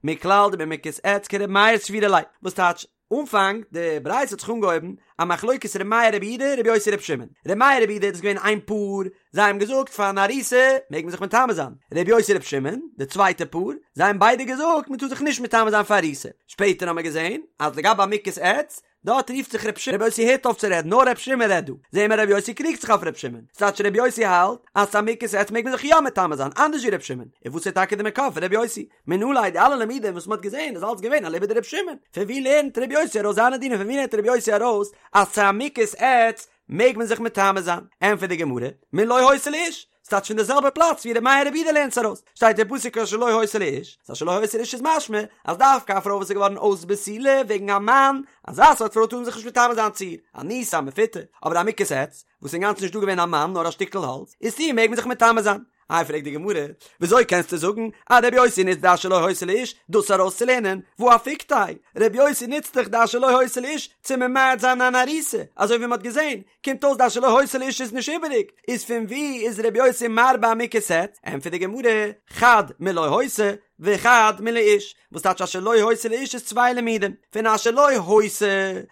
מכלל דבמוכת עץ כר' מאיר סבירא ליה, וואס טייטש, אנפאנג די ברייתא האט זיך אנגעהויבן א מחלוקת ר' מאיר רבי יהודה ר' יוסי ר' שמעון, ר' מאיר רבי יהודה איז געווען איין פאר, זיי האבן געזאגט פאר אן ארוסה מעג מען זיך מטמא זיין, ר' יוסי ר' שמעון, די צווייטע פאר, זיי האבן ביידע געזאגט מען טאר זיך נישט מטמא זיין פאר ארוסה, שפעטער האבן מיר געזען אז לגבי א מוכת עץ, דארט רופט זיך ר' שמעון, ר' יוסי הערט אויף צו רעדן נאר ר' שמעון רעדט דא, זעהן מיר ר' יוסי קריגט זיך אויף ר' שמעון, ס'טייטש ר' יוסי האלט אז צו א מוכת עץ מעג מען זיך יא מטמא זיין אנדערש ווי ר' שמעון, און וואס איז טאקע די מקור פון ר' יוסי? מנא ליה די אלע לימודים וואס מ'האט געזען איז אלץ געווען אליבא דר' שמעון, פון ווי לערנט ר' יוסי ארויס זיינע דינים פון ווי לערנט ר' יוסי ארויס אז צו א מוכת עץ מעג מען זיך מטמא זיין? ענטפערט די גמרא, מלא היתה לאיש, ס'טייטש פון די זעלבע פלאץ ווי ר' מאיר רבי יהודה לערנט עס ארויס, שטייט אין פסוק אשר לא היתה לאיש, אז אשר לא היתה לאיש איז משמע אז דווקא א פרוי וואס איז געווארן אויס בתולה וועגן א מאן, אזא סארט פרוי טאר מען זיך נישט מטמא זיין צו איר, אנוסה מפותה, אבער א מוכת עץ, וואס איז אינגאנצן נישט דא געווען א מאן נאר א שטיקל האלץ, איז צו איר מעג מען זיך מטמא זיין. איי פרעגט די גמרא, וויאזוי קענסטו זאגן אז רבי יוסי נוצט די אשר לא היתה לאיש דאס ארויסצולערנען, והא אפיקתיה, רבי יוסי נוצט דאך די אשר לא היתה לאיש צו ממעט זיין אן ארוסה, אזוי ווי מען האט געזען, קומט אויס די אשר לא היתה לאיש איז נישט איבעריג, איז פון וואו איז רבי יוסי מרבה א מוכת עץ? ענטפערט די גמרא, חד מלא היתה וחד מלאיש, וואס טייטש אשר לא היתה לאיש איז צוויי לימודים, פון אשר לא היתה,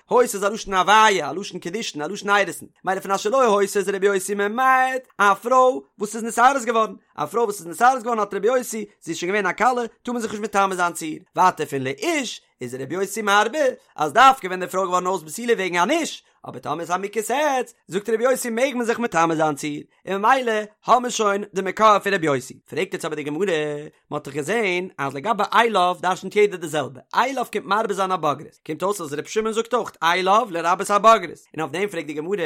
היתה איז א לשון הוויה, א לשון קידושין, א לשון אירוסין, מילא פון אשר לא היתה איז רבי יוסי ממעט א פרוי וואס איז נתארס געווארן, א פרוי וואס איז נתארס געווארן האלט רבי יוסי, זי איז שוין געווען א כלה, טאר מען זיך נישט מטמא זיין צו איר, ווייטער פון לאיש איז רבי יוסי מרבה אז דווקא ווען די פרוי איז געווארן אויס בתולה וועגן אן איש, אבער טאמער איז א מוכת עץ, זאגט רבי יוסי מעג מען זיך מטמא זיין צו איר, און ממילא האבן מיר שוין די מקור פון רבי יוסי. פרעגט יעצט אבער די גמרא, מען האט דאך געזען אז לגבי אליו דרשנ'ט יעדער די זעלבע, אליו קומט מרבה זיין א בוגרת, קומט אויס אז רבי שמעון זאגט אויך אליו לרבות א בוגרת, און אויף דעם פרעגט די גמרא,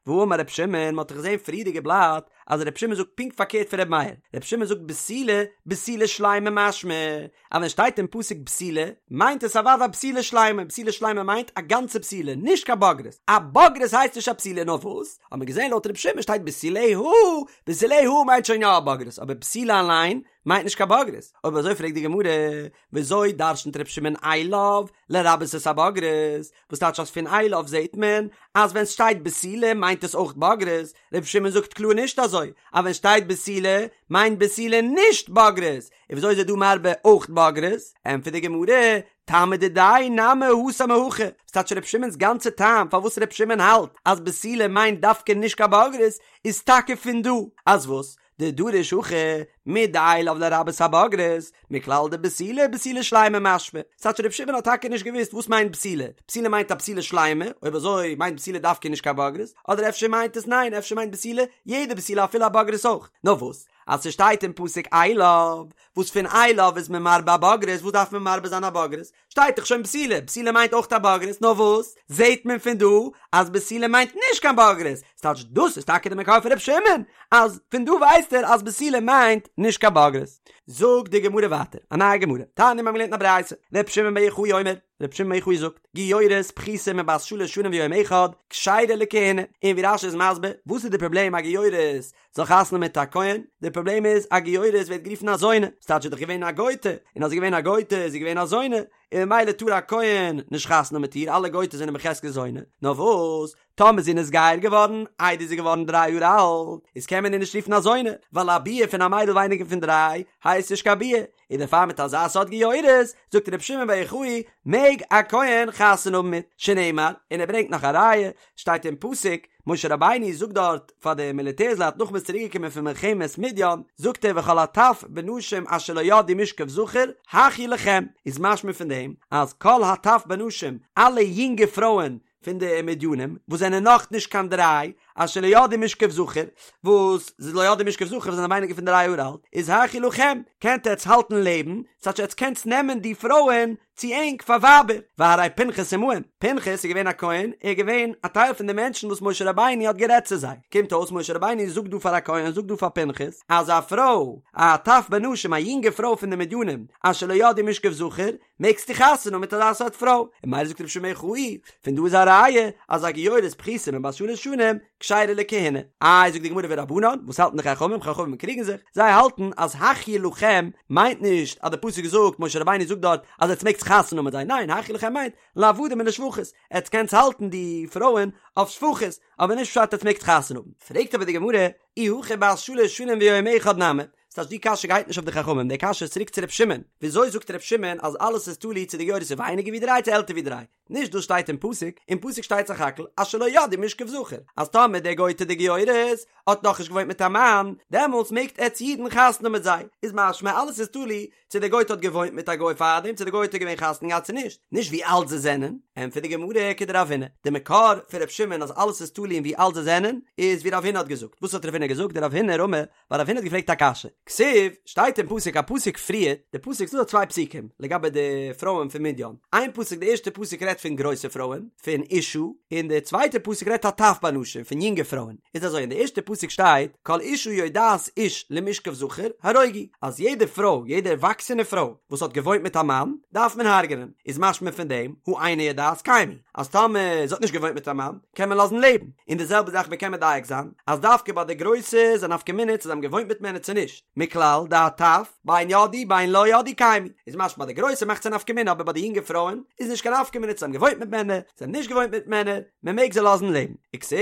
והאמר רבי שמעון, מען האט דאך געזען פריערדיגע בלאט אז רבי שמעון זאגט פונקט פארקערט פון רבי מאיר, רבי שמעון זאגט בתולה, בתולה שלימה משמע, אז ווען שטייט אין פסוק בתולה, מיינט עס אוודאי א בתולה שלימה, בתולה שלימה מיינט א גאנצע בתולה, נישט קיין בוגרת, א בוגרת הייסט נישט א בתולה, נאר וואס? האט מען געזען לויט רבי שמעון שטייט בתוליה, בתוליה מיינט שוין יא א בוגרת, אבער בתולה אליין מיינט נישט קיין בוגרת, אויב אזוי פרעגט די גמרא, וויאזוי דרשנ'ט רבי שמעון אליו לרבות את הבוגרת, וואס טייטש אז פון אליו זעהט מען אז ווען סשטייט בתולה מיינט עס אויך בוגרת, רבי שמעון זאגט קלאר נישט אזוי, אז ווען שטייט בתולה מיינט בתולה נישט בוגרת, און וויאזוי איז ער דא מרבה אויך בוגרת? ענטפערט די גמרא, טעמא דידיה נמי התם מהכא, וואס טייטש רבי שמעון'ס גאנצע טעם פארוואס רבי שמעון האלט אז בתולה מיינט דווקא נישט קיין בוגרת איז טאקע פון דא, אז וואס? דדריש הכא מדאליו לרבות הבוגרת, מכלל דבתולה בתולה שלימה משמע, ס'טייטש רבי שמעון האט טאקע נישט געוואוסט וואס מיינט בתולה, בתולה מיינט א בתולה שלימה, אויב אזוי מיינט בתולה דווקא נישט קיין בוגרת, אדער אפשר מיינט עס ניין אפשר מיינט בתולה יעדע בתולה אפילו א בוגרת אויך, נאר וואס אז ס'שטייט אין פסוק אליו, וואס פון אליו איז מען מרבה א בוגרת, וואס דארף מען מרבה זיין א בוגרת? שטייט דאך שוין בתולה, בתולה מיינט אויך א בוגרת, נאר וואס זעהט מען פון דא אז בתולה מיינט נישט קיין בוגרת, ס'טייטש דאס איז טאקע די מקור פון ר' שמעון, אז פון דא ווייסט ער אז בתולה מיינט נישט קיין בוגרת. זאגט די גמרא ווייטער, א נייע גמרא, תניא מיר האבן געלערנט אין א ברייתא, ר' שמעון בר יוחאי אומר, רבי שמעון בר יוחאי זאגט, גיורת פחותה מבת שלש שנים ויום אחד, כשרה לכהונה, און ווי רש"י איז מסביר, וואס איז די פראבלעם א גיורת זאל חתונה האבן מיט א כהן, די פראבלעם איז א גיורת ווערט גערופן א זונה, ס'טייטש זי איז דאך געווען א גויטע, און אז זי איז געווען א גויטע איז זי געווען א זונה, און ממילא טאר א כהן נישט חתונה האבן מיט איר, אלע גויטעס זענען בחזקת זונה, נאר וואס, טאמער זי איז נתגייר געווארן איידער זי איז געווארן דריי יאר אלט, איז קען מען איר נישט רופן א זונה, ווייל א ביאה פון א מיידל ווייניגער פון דריי הייסט נישט קיין ביאה, און דערפאר מיט אזא סארט גיורת, זאגט רבי שמעון בר יוחאי, מעג א כהן חתונה האבן מיט, שנאמר, און ער ברענגט נאך א ראיה, שטייט אין פסוק, משה רבינו זאגט דארט פאר די מיליטערס-לייט נאך מ'איז צוריק געקומען פון מלחמת מדיין, זאגט ער וכל הטף בנשים אשר לא ידעו משכב זכר, החיו לכם, איז משמע פון דעם אז כל הטף בנשים, אלע יונגע פרויען פון די מדינים וואס זענען נאך נישט קיין דריי, אשר לא ידעו משכב זכר, וואס זיי לא ידעו משכב זכר וואס זענען ווייניגער פון דריי יאר אלט, איז החיו לכם, קענט עטץ האלטן לעבן, ס'טייטש עטץ קענטס נעמען די פרויען צו ענק פאר ווייבער, והרי פנחס עמהם, פנחס איז געווען א כהן, ער איז געווען א טייל פון די מענטשן וואס משה רבינו האט גערעדט צו זיי, קומט אויס משה רבינו זאגט דא פאר א כהן, זאגט דא פאר פנחס, אז א פרוי, א טף בנשים, א יונגע פרוי פון די מדינים, אשר לא ידעו משכב זכר, מעגסטו חתונה האבן מיט אזא סארט פרוי, און ממילא זאגט רבי שמעון בר יוחאי, פון דא איז א ראיה אז א גיורת פחותה מבת שלש שנים כשרה לכהונה. איי זאגט די גמרא ורבנן, וואס האלטן די חכמים, חכמים קריגן זיך, זיי האלטן אז החיו לכם מיינט נישט אז די פסוק זאגט, משה רבינו זאגט דארט אז עטס מעגטס חתונה האבן מיט זיי, ניין החיו לכם מיינט לעבדים ולשפחות, עטס קענטס האלטן די פרויען אויף שפחות, אבער נישט פשט עטס מעגטס חתונה האבן. פרעגט אבער די גמרא, אי הכי בת שלש שנים ויום אחד נמי, ס'טייטש די קשיא גייט נישט אויף די חכמים, די קשיא איז צוריק צו ר' שמעון, וויאזוי זאגט ר' שמעון אז אלעס איז תלוי צו די גיורת איז ווייניגער ווי דריי צו עלטער ווי דריי? נישט דאס שטייט אין פסוק, אין פסוק שטייט סך הכל אשר לא ידעו משכב זכר, אז טאמער די גויטע די גיורת האט נאכנישט געוואוינט מיט א מאן, דעמאלטס מעגט עטץ אידן חתונה האבן מיט זיי, איז משמע אלעס איז תלוי צו די גויטע האט געוואוינט מיט א גוי פארדעם צו די גויטע איז געווען חתונה געהאט צו נישט, נישט ווי אלט זיי זענען, ענטפערט די גמרא כדרב הונא, די מקור פון ר' שמעון אז אלעס איז תלוי אין ווי אלט זיי זענען, איז ווי רב הונא האט געזאגט, וואס האט רב הונא געזאגט, דרב הונא רמי ווייל רב הונא האט געפרעגט א קשיא, כתיב, שטייט אין פסוק א פסוק פריער, די פסוק ס'דא דא צוויי פסוקים לגבי די פרויען פון מדין, איין פסוק די ערשטע פסוק רעדט פון גרויסע פרויען, פון אשה, און די צווייטע פסוק רעדט הטף בנשים, פון יונגע פרויען, איז אזוי אין די ערשטע פסוק שטייט כל אשה יודעת איש למשכב זכר הרוגו, אז יעדע פרוי, יעדע ערוואקסענע פרוי וואס האט געוואוינט מיט א מאן, דארף מען הרג'נען, איז משמע פון דעם, הא אינה יודעת קיימו. אז טאמער זי האט נישט געוואוינט מיט א מאן, קען מען לאזן לעבן, און די זעלבע זאך מ'קען מדייק זיין, אז דווקא ביי די גרויסע איז א נפקא מינה צו זיי האבן געוואוינט מיט מענער צו נישט, מכלל דהטף, בין ידעו בין לא ידעו קיימו, איז משמע ביי די גרויסע מאכט עס א נפקא מינה אבער ביי די יונגע פרויען איז נישט קיין נפקא מינה צו זיי האבן געוואוינט מיט מענער, זיי האבן נישט געוואוינט מיט מענער, מען מעג זיי לאזן לעבן. וכתיב,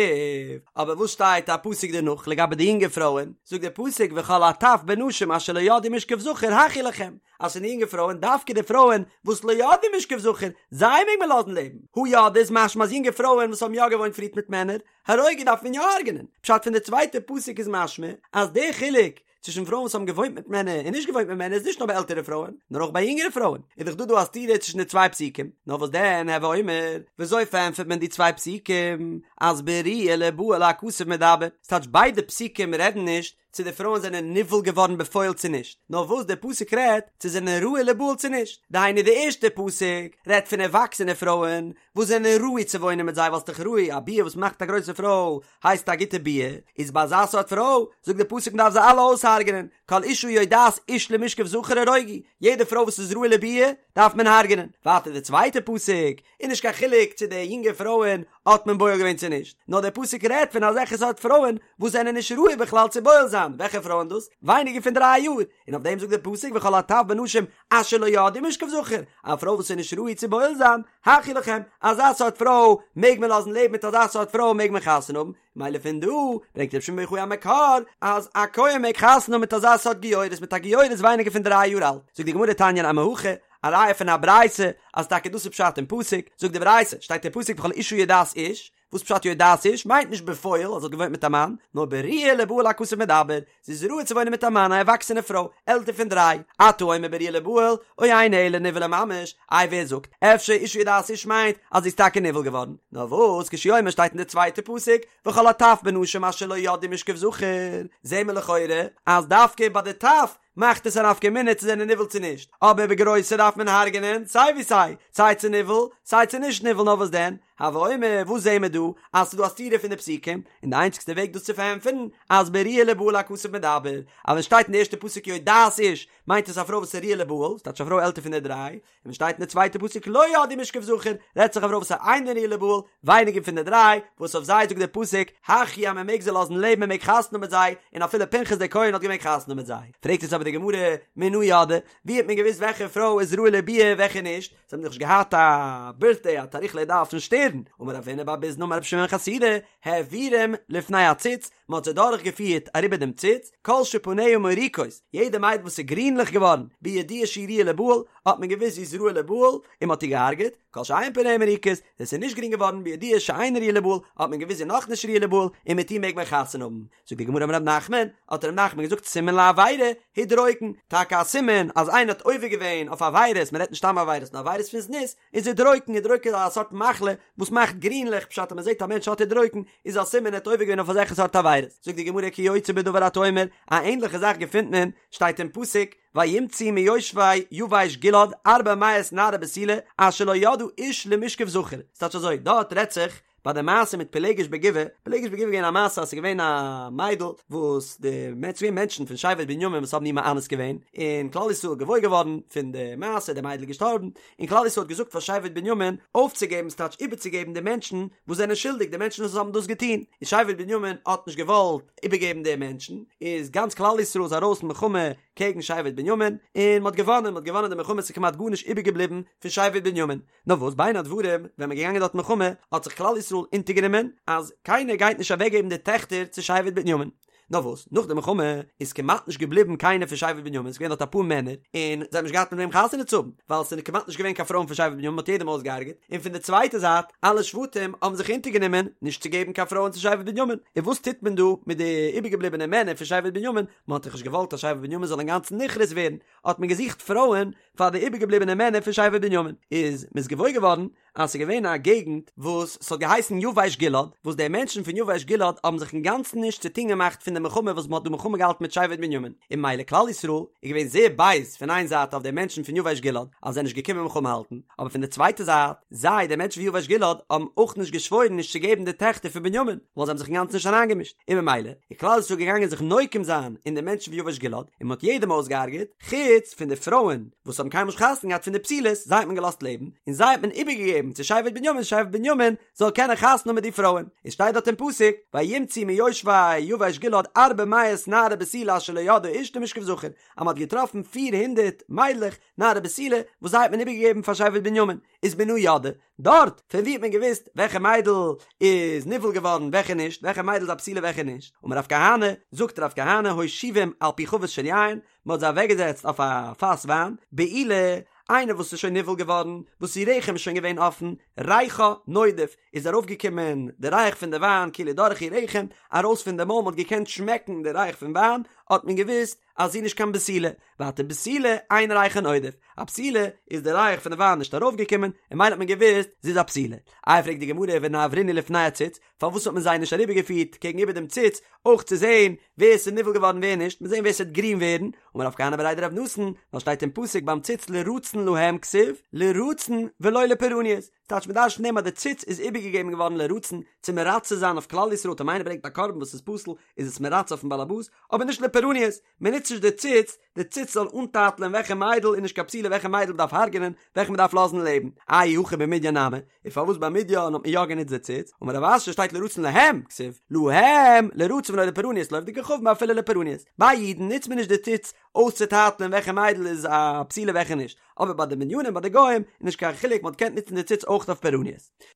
אבער וואס שטייט א פסוק דערנאך לגבי די יונגע פרויען, זאגט דער פסוק וכל הטף בנשים אשר לא ידעו משכב זכר החיו לכם, אז פון די יונגע פרויען, דווקא די פרויען וואס לא ידעו משכב זכר, זיי מעג מען לאזן לעבן. הא ידעו איז משמע אז יונגע פרויען וואס האבן יא געוואוינט פריערט מיט מענער, הרוגו דארף מען יא הרג'נען. פשט פון די צווייטע פסוק איז משמע אז די חילוק צווישן פרויען וואס האבן געוואוינט מיט מענער און נישט געוואוינט מיט מענער איז נישט נאר ביי עלטערע פרויען, נאר אויך ביי יונגערע פרויען. איז דאך דא דא א סתירה צווישן די צוויי פסוקים. נאר וואס דען, הוי אומר, וויאזוי פארענטפערט מען די צוויי פסוקים אז בראויה ליבעל הכתוב מדבר? ס'טייטש ביידע פסוקים רעדן נישט צו די פרויען זענען נבעל געווארן בפועל צו נישט, נאר וואס דער פסוק רעדט, צו זענען ראוי ליבעל צו נישט, דהיינו די ערשטע פסוק רעדט פון ערוואקסענע פרויען וואס זענען ראוי צו וואוינען מיט זיי ווייל ס'דאך ראוי, א ביאה וואס מאכט א גרויסע פרוי הייסט א גוטע ביאה, איז ביי אזא סארט פרוי זאגט דער פסוק מ'דארף זיי אלע אויסהרג'נען, כל אשה יודעת איש למשכב זכר הרוגו, יעדע פרוי וואס איז ראוי לביאה דארף מען הרג'נען, ווייטער די צווייטע פסוק איז נישט קיין חילוק צו די יונגע פרויען האט מען בועל געווען צו נישט, נאר דער פסוק רעדט פון אזעלכע סארט פרויען וואס זענען נישט ראוי בכלל צו בועל זיין, וועלכע פרויען דאס? ווייניגער פון דריי יאר, און אויף דעם זאגט דער פסוק וכל הטף בנשים אשר לא ידעו משכב זכר, א פרוי וואס איז נישט ראוי צו בועל זיין, החיו לכם, אזא סארט פרוי מעג מען לאזן לעבן מיט אזא סארט פרוי מעג מען חתונה האבן, מילא פון דא ברענגט רבי שמעון בר יוחאי א מקור אז א כהן מעג חתונה האבן מיט אזא סארט גיורת מיט א גיורת ווייניגער פון דריי יאר אלט, זאגט די גמרא תניא נמי הכי, א ראיה פון א ברייתא אז טאקע דאס איז פשט אין פסוק, זאגט די ברייתא, שטייט אין פסוק וכל אשה יודעת איש, וואס פשט יודעת איש? מיינט נישט בפועל אז זי האט געוואוינט מיט א מאן, נאר בראויה ליבעל הכתוב מדבר, זי איז ראוי צו וואוינען מיט א מאן א ערוואקסענע פרוי, עלטער פון דריי, אתה אומר בראויה ליבעל, או אינו אלא נבעלה ממש, איי ווער זאגט, אפשר אשה יודעת איש מיינט אז זי איז טאקע נבעל געווארן, נאר וואס כשהוא אומר שטייט אין די צווייטע פסוק, וכל הטף בנשים אשר לא ידעו משכב זכר, זעהן מיר לכאורה אז דווקא ביי די טף מאכט עס א נפקא מינה צו זענען נבעל צו נישט, אבער ביי גרויסע דארף מען הרג'נען סיי ווי סיי, סיי צו נבעל סיי צו נישט נבעל נאר וואס דען? הוי אומר, וואס זעהן מיר דא? אז ס'איז דא א סתירה פון די פסוקים, און די איינציגסטע וועג דאס צו פארענטפערן, אז בראויה לבעל הכתוב מדבר, אז ווען שטייט אין די ערשטע פסוק יודעת איש, מיינט עס א פרוי וואס איז ראויה לבעל, ס'טייטש א פרוי עלטער פון די דריי, און ווען שטייט אין די צווייטע פסוק לא ידעו משכב זכר, רעדט זיך א פרוי וואס איז אינה ראויה לבעל, ווייניגער פון די דריי, וואס אויף זיי זאגט דער פסוק, החיו אז מען מעג זיי לאזן לעבן מען מעג חתונה האבן מיט זיי, און אפילו פנחס דער כהן האט געמעגט חתונה האבן מיט זיי. פרעגט עס אבער די גמרא, מנא ידעי, ווי האט מען געוואוסט וועלכע פרוי איז ראויה לביאה וועלכע נישט? זיי האבן דאך נישט געהאט א בירטדעי א תאריך לידה אויפן שטערן, אמר רב הונא בר ביזנא אמר רבי שמעון חסידא, העבירום לפני הציץ, מען האט זיי דורך געפירט אריבער דעם ציץ, כל שפניה מוריקות, יעדע מיידל וואס איז גרינליך געווארן, בידוע שהיא ראויה לבעל, האט מען געוואוסט זי איז ראויה לבעל, און מען האט איר געהארגעט, כל שאין פניה מוריקות, ווען ס'איז נישט גרין געווארן, בידוע שאינה ראויה לבעל, האט מען געוואוסט זי איז נאכנישט ראויה לבעל, און מיט איר מעג מען חתונה האבן. זאגט די גמרא אמר רב נחמן, האט רב נחמן געזאגט סימן לעבירה, הדרוקן, טאקע א סימן אז איינער האט עובר געווען אויף עבירות, מען רעדט נישט סתם עבירות נאר עבירות פון זנות, איז הדרוקן, הדרוקן איז א סארט מחלה וואס מאכט גרינליך, פשט אז מען זעט א מענטש האט הדרוקן, איז א סימן ער האט עובר געווען אויף אזעלכע סארט עבירות. זאגט די גמרא כיוצא בדבר אתה אומר, א ענדליכע זאך געפינט מען, שטייט אין פסוק, וימצאו מיושבי יבש גלעד ארבע מאות נערה בתולה אשר לא ידעה איש למשכב זכר, ס'טייטש אזוי, דארט רעדט זיך ביי די מעשה מיט פילגש בגבעה, פילגש בגבעה איז געווען א מעשה אז ס'איז געווען א מיידל וואס די מענטש ס'איז געווען מענטשן פון שבט בנימין וואס האבן איר מאנס געווען, און כלל ישראל איז געוואויר געווארן פון די מעשה, די מיידל איז געשטארבן, און כלל ישראל האט געזאגט פאר שבט בנימין אויפצוגעבן ס'טייטש איבערצוגעבן די מענטשן וואס זענען שולדיג, די מענטשן וואס האבן דאס געטון, און שבט בנימין האט נישט געוואלט איבערגעבן די מענטשן, איז גאנץ כלל ישראל איז ארויס מלחמה קעגן שבט בנימין, און מ'האט געוואנען, מ'האט געוואנען די מלחמה, ס'איז כמעט גארנישט איבערגעבליבן פון שבט בנימין. נאר וואס בין הדברים ווען מ'איז געגאנגען דארט מלחמה האט זיך כלל ישראל אונטערגענומען אז קיינער גייט נישט אוועקגעבן די טעכטער צו שבט בנימין. נאר וואס נאך די מלחמה איז כמעט נישט געבליבן קיינער פון שבט בנימין, ס'איז געווען דארט אפאר מענער און זיי האבן נישט געהאט מיט וועם חתונה צו האבן ווייל ס'איז כמעט נישט געווען קיין פרויען פון שבט בנימין מ'האט יעדעם אויסגעהארגעט, און פון די צווייטע זייט אלע שבטים האבן זיך אונטערגענומען נישט צו געבן קיין פרויען צו שבט בנימין, און וואס טוט מען דא מיט די איבערגעבליבענע מענער פון שבט בנימין, מ'האט דאך נישט געוואלט אז שבט בנימין זאל אינגאנצן נכרת ווערן, האט מען געזוכט פרויען פאר די איבערגעבליבענע מענער פון שבט בנימין, איז מ'איז געוואויר געווארן אז ס'איז געווען א געגנט וואס ס'האט געהייסן יבש גלעד, וואס די מענטשן פון יבש גלעד האבן זיך אינגאנצן נישט צו טון געמאכט פון די מלחמה וואס מ'האט דא מלחמה געהאלטן מיט שבט בנימין, און ממילא כלל ישראל איז געווען זייער בייז פון איין זייט אויף די מענטשן פון יבש גלעד אז זיי זענען נישט געקומען מלחמה האלטן, אבער פון די צווייטע זייט, זיי, די מענטשן פון יבש גלעד, האבן אויך נישט געשוואוירן נישט צו געבן די טעכטער פון בנימין, ווייל זיי האבן זיך אינגאנצן נישט אריינגעמישט, און ממילא איז כלל ישראל געגאנגען זיך נוקם זיין אין די מענטשן פון יבש גלעד, און מ'האט יעדעם אויסגעהארגעט, חוץ פון די פרויען וואס האבן קיינמאל נישט חתונה געהאט פון די בתולות, זיי האט מען געלאזט לעבן, און זיי האט מען איבערגעגעבן צו שבט בנימין, שבט בנימין זאל קענען חתונה האבן מיט די פרויען. עס שטייט דארט אין פסוק, וימצאו מיושבי יבש גלעד ארבע מאות נערה בתולה אשר לא ידעה איש למשכב זכר, אז מען האט געטראפן פיר הונדערט מיידלעך נערה בתולה וואס זיי האט מען איבערגעגעבן פאר שבט בנימין, איז מנא ידעי, דארט, פון ווי האט מען געוואוסט וועלכע מיידל איז נבעל געווארן וועלכע נישט, וועלכע מיידל איז א בתולה וועלכע נישט, אמר רב כהנא, זאגט רב כהנא הושיבום על פי חבית של יין, מען האט זיי אוועקגעזעצט אויף א פאס וויין, בעולה, איינער וואס איז שוין נבעל געווארן, וואס איר רחם איז שוין געווען אפן, ריחה נודף, איז ארויפגעקומען די ריח פון די וויין כאילו דורך איר רחם, ארויס פון די מויל, מען האט געקענט שמעקן די ריח פון וויין, האט מען געוואוסט אז זי איז נישט קיין בתולה, ווייטער בתולה אין ריחה נודף, א בתולה איז די ריח פון די וויין נישט ארויפגעקומען, און ממילא האט מען געוואוסט זי איז א בתולה. איי פרעגט די גמרא ונעברינהו לפני הציץ, פארוואס האט מען זיי נישט אריבערגעפירט קעגן איבער דעם ציץ, אויך צו זען ווער עס איז נבעל געווארן ווער נישט, מיר זען ווער עס וועט גרין ווערן, אמר רב כהנא בריה דרב נתן, ווייל שטייט אין פסוק ביים ציץ לרצון להם כתיב, לרצון ולא לפורענות, ס'טייטש מ'דרש'נט פון דעם אז די ציץ איז איבערגעגעבן געווארן לרצון, צו מרצה זיין אויף כלל ישראל, טאמער איינער ברענגט א קרבן וואס איז פסול, איז עס מרצה אויפן בעלעבאס, אבער נישט לפורענות, מען נוצט נישט די ציץ, די ציץ זאל אנטייטלען וועלכע מיידל איז נישט קיין בתולה וועלכע מיידל מ'דארף הרג'נען, וועלכע מ'דארף לאזן לעבן. אי הכי במדין נמי, און פארוואס ביי מדין האט מען יא גענוצט די ציץ? אמר רב אשי שטייט לרצון להם, כתיב, להם, לרצון ולא לפורענות, לעובדי כוכבים אפילו לפורענות. ביי אידן נוצט מען נישט די ציץ אויסצוטייטלען וועלכע מיידל איז א בתולה וועלכע נישט, אבער ביי די מדינים ביי די גוים איז נישט קיין חילוק מען האט געקענט נוצן די ציץ אויך אויף פורענות.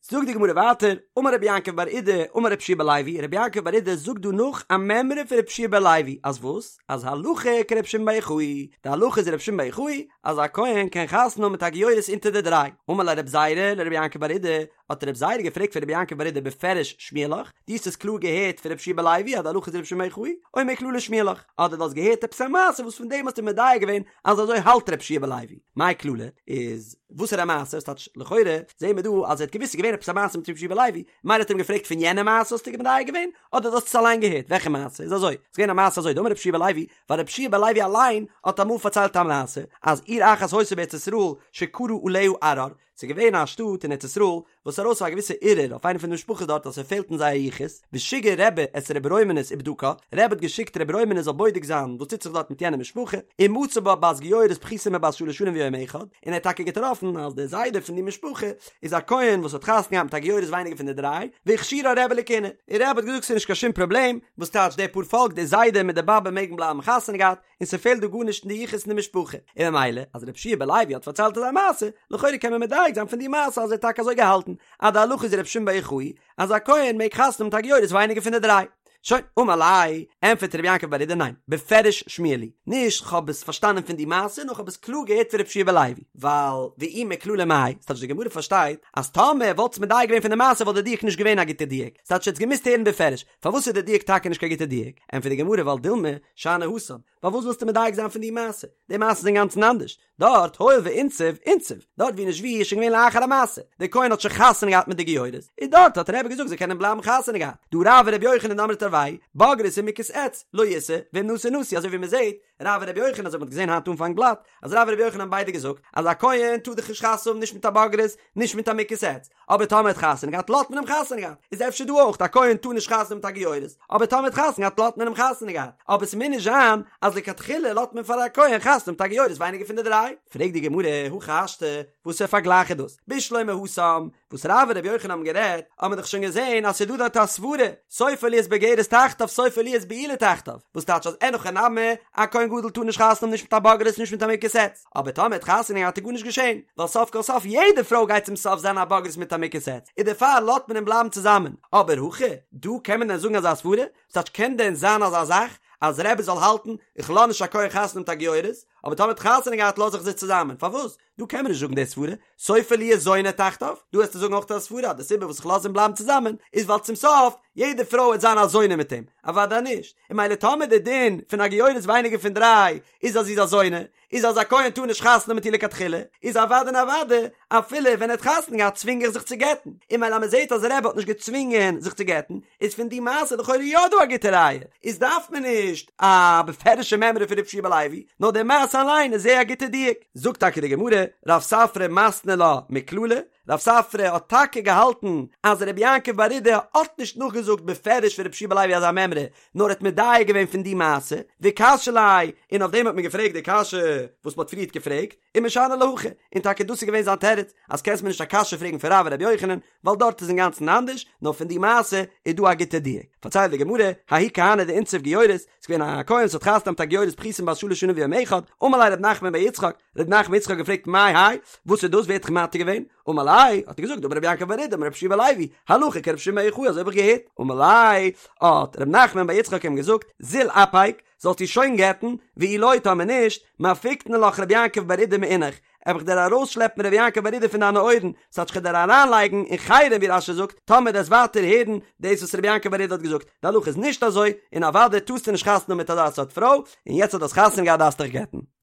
זאגט די גמרא ווייטער, אמר רבי יעקב בר אידי אמר רבי יהושע בן לוי, רבי יעקב בר אידי זאגט דא נאך א מימרא פון רבי יהושע בן לוי, אז וואס? אז הלכה כרבי שמעון בר יוחאי, די הלכה איז רבי שמעון בר יוחאי, אז א כהן קען חתונה האבן מיט א גיורת אונטער די דריי. אמר ליה רבי זירא לרבי יעקב בר אידי, האט רבי זירא געפרעגט פון רבי יעקב בר אידי בפירוש שמיע לך, דו האסט עס קלאר געהערט פון רבי יהושע בן לוי אז די הלכה איז רבי שמעון בר יוחאי, או מכללא שמיע לך, אדער דו האסט געהערט עפעס א מעשה וואס פון דעם האסטו מדייק געווען אז אזוי האלט רבי יהושע בן לוי, מאי כללא, איז וואסערע מעשה, ס'טייטש לכאורה זעהן מיר דא אז ער האט געוואוסט ס'איז געווען עפעס א מעשה מיט רבי יהושע בן לוי, מילא האט ער אים געפרעגט פון יענע מעשה האסטו מדייק געווען, אדער דו האסט עס אליין געהערט, וועלכע מעשה, איז אזוי, ס'איז געווען א מעשה אזוי, דאמר רבי יהושע בן לוי, ווייל רבי יהושע בן לוי אליין האט אמאל פארציילט א מעשה, אז עיר אחת היתה בארץ ישראל שקרה עליה ערר, ס'איז געווען א שטאט אין ארץ ישראל וואס איז ארויס א געוויסע ערעור אויף איינע פון די משפחות דארט אז ס'פעלט אין זייער יחוס, ושיגר רבי את רבי רומנוס ובדקה, רבי האט געשיקט רבי רומנוס זאל בודק זיין וואס טוט זיך דארט מיט יענע משפחה, ומצא בה בת גיורת פחותה מבת שלש שנים ויום אחד, און ער האט טאקע געטראפן אז דער זיידע פון די משפחה איז א כהן וואס האט חתונה געהאט מיט א גיורת ווייניגער פון די דריי, והכשירה רבי לכהונה, און רבי האט געזאגט ס'איז נישט קיין שום פראבלעם, וואס טייטש די פאר פאלק די זיידע מיט די באבע מעגן בלייבן חתונה געהאט, און ס'פעלט דא גארנישט אין די יחוס אין די משפחה, און ממילא אז רבי יהושע בן לוי האט פארציילט אזא מעשה, לכאורה קען מען מדייק זיין פון די מעשה אז ער האט טאקע אזוי געהאלטן, אז די הלכה איז רבי שמעון בר יוחאי, אז א כהן מעג חתונה האבן מיט א גיורת ווייניגער פון די דריי. שוין, אמר ליה, ענטפערט רבי יעקב בר אידי ניין, בפירוש שמיע לי, נישט כ'האב עס פארשטאנען פון די מעשה, נאר כ'האב עס קלאר געהערט פון רבי יהושע בן לוי, ווייל ואי מכללא מאי, ס'טייטש די גמרא פארשטייט אז טאמער וואלטסט מדייק געווען פון די מעשה וואלט די דיוק נישט געווען א גוטע דיוק, ס'טייטש ער האט עס געמוזט הערן בפירוש, פארוואס איז די דיוק טאקע נישט קיין גוטע דיוק? ענטפערט די גמרא ווייל דילמא שאני התם, פארוואס ווילסטו מדייק זיין פון די מעשה? די מעשה איז אינגאנצן אנדערש, דארט הואיל ואינסיב אינסיב, דארט ווי נישט ווי איז שוין געווען לאחר המעשה, דער כהן האט שוין חתונה געהאט מיט די גיורת, און דארט האט רבי געזאגט זיי קענען בלייבן חתונה געהאט, דהא רב ורבי יוחנן דאמרי תרוייהו, בוגרת ומוכת עץ, לא ישא, ואם נשא נשוי, אזוי ווי מען זעט, רב און רבי יוחנן אזוי ווי מען האט געזען היינט אנפאנג בלאט, אז רב און רבי יוחנן האבן ביידע געזאגט, אז א כהן טאר דאך נישט חתונה האבן נישט מיט א בוגרת, נישט מיט א מוכת עץ, אבער טאמער האט חתונה געהאט לאזט מען אים חתונה געהאט, איז אפשר דא אויך א כהן טאר נישט חתונה האבן מיט א גיורת, אבער טאמער האט חתונה געהאט לאזט מען אים חתונה געהאט, אבער ס'מוז נישט זיין אז לכתחילה לאזט מען פאר א כהן חתונה האבן מיט א גיורת ווייניגער פון די דריי. פרעגט די גמרא, הכי השתא, וואסער פארגלייך איז דאס? בשלמא התם, וואס רב און רבי יוחנן האבן גערעדט, האט מען דאך שוין געזען אז ס'איז דא דארט א סברה, סופה להיות בוגרת תחתיו סופה להיות בעולה תחתיו, וואס טייטש אז אין הכי נמי, א כהן גדול טאר נישט חתונה האבן נישט מיט א בוגרת נישט מיט א מוכת עץ, אבער טאמער האט חתונה געהאט איז גארנישט געשען, ווייל סוף כל סוף יעדע פרוי גייט צום סוף זיין א בוגרת מיט א מוכת עץ, און דערפאר לאזט מען אים בלייבן צוזאמען, אבער הכא, דא קען מען דען זאגן אזא סברה? וואס טייטש קען דען זיין אזא זאך אז רבי זאל האלטן איך לאז נישט א כהן חתונה מיט א גיורת, אבער טאמער האט חתונה געהאט לאז איך זיי צוזאמען, פארוואס? דא קען מען נישט זאגן די סברה, סופה להיות זונה תחתיו, דא וועסטו זאגן אויך א סברה אז די סיבה וואס איך לאז אים בלייבן צוזאמען איז ווייל צום סוף יעדע פרוי וועט זיין א זונה מיט אים, אוודאי נישט, און ממילא טאמער די דין פון א גיורת ווייניגער פון דריי איז אז זי איז א זונה, איז אז א כהן טאר נישט חתונה מיט איר לכתחילה, איז אוודאי און אוודאי אפילו ווען ער האט חתונה געהאט צווינג איך זיך צו גט'ן, און ממילא אז מען זעט אז רבי האט נישט געצווינגען זיך צו גט'ן, איז פון די מעשה לכאורה יא דא א גוטע ראיה, איז דארף מען נישט א בפירוש'ע מימרא פון רבי יהושע בן לוי, נאר די מעשה אליין איז זייער א גוטע דיוק. זאגט טאקע די גמרא, רב ספרא מתני לה מכללא, רב ספרא האט טאקע געהאלטן אז רבי יעקב בר אידי האט נישט נאכגעזאגט בפירוש פון רבי יהושע בן לוי אזא מימרא, נאר האט מדייק געווען פון די מעשה, וקשיא ליה, און אויף דעם האט מען געפרעגט די קשיא וואס מען האט פריערט געפרעגט, ומשני להכי, און טאקע דאס איז געווען זיין תירוץ, אז קענסט מיר נישט א קשיא פרעגן פון רב און רבי יוחנן, ווייל דארט איז אינגאנצן אנדערש, נאר פון די מעשה איז דא א גוטע דיוק. פארציילט די גמרא, ההוא כהנא דאינסיב גיורת, ס'איז געווען א כהן וואס האט חתונה געהאט מיט א גיורת פחותה מבת שלש שנים ויום אחד, אמר ליה ר' נחמן בר יצחק, ר' נחמן בר יצחק האט געפרעגט מאי האי, וואס איז דאס ווער האט דיך מתיר געווען? אמר ליה, האט ער געזאגט, אמר רבי יעקב בר אידי אמר רבי יהושע בן לוי, הלכה כרבי שמעון בר יוחאי אזוי האב איך געהערט. אמר ליה, האט ר' נחמן בר יצחק אים געזאגט, זיל אפיק, זאלסט איר שוין גט'ן, ואי לא טאמער נישט, מפיקנא לך רבי יעקב בר אידי מאינך, וועל איך דיר ארויסשלעפן רבי יעקב בר אידי פון דיינע אויערן, ס'טייטש כ'וועל דיר אריינלייגן אין חרם ווי רש"י זאגט, טאמער דו וועסט ווייטער הערן דאס וואס רבי יעקב בר אידי האט געזאגט, די הלכה איז נישט אזוי, און אוודאי טארסטו נישט חתונה האבן מיט אזא סארט פרוי, און יעצט אז דו האסט חתונה געהאט דארפסטו דיך גט'ן.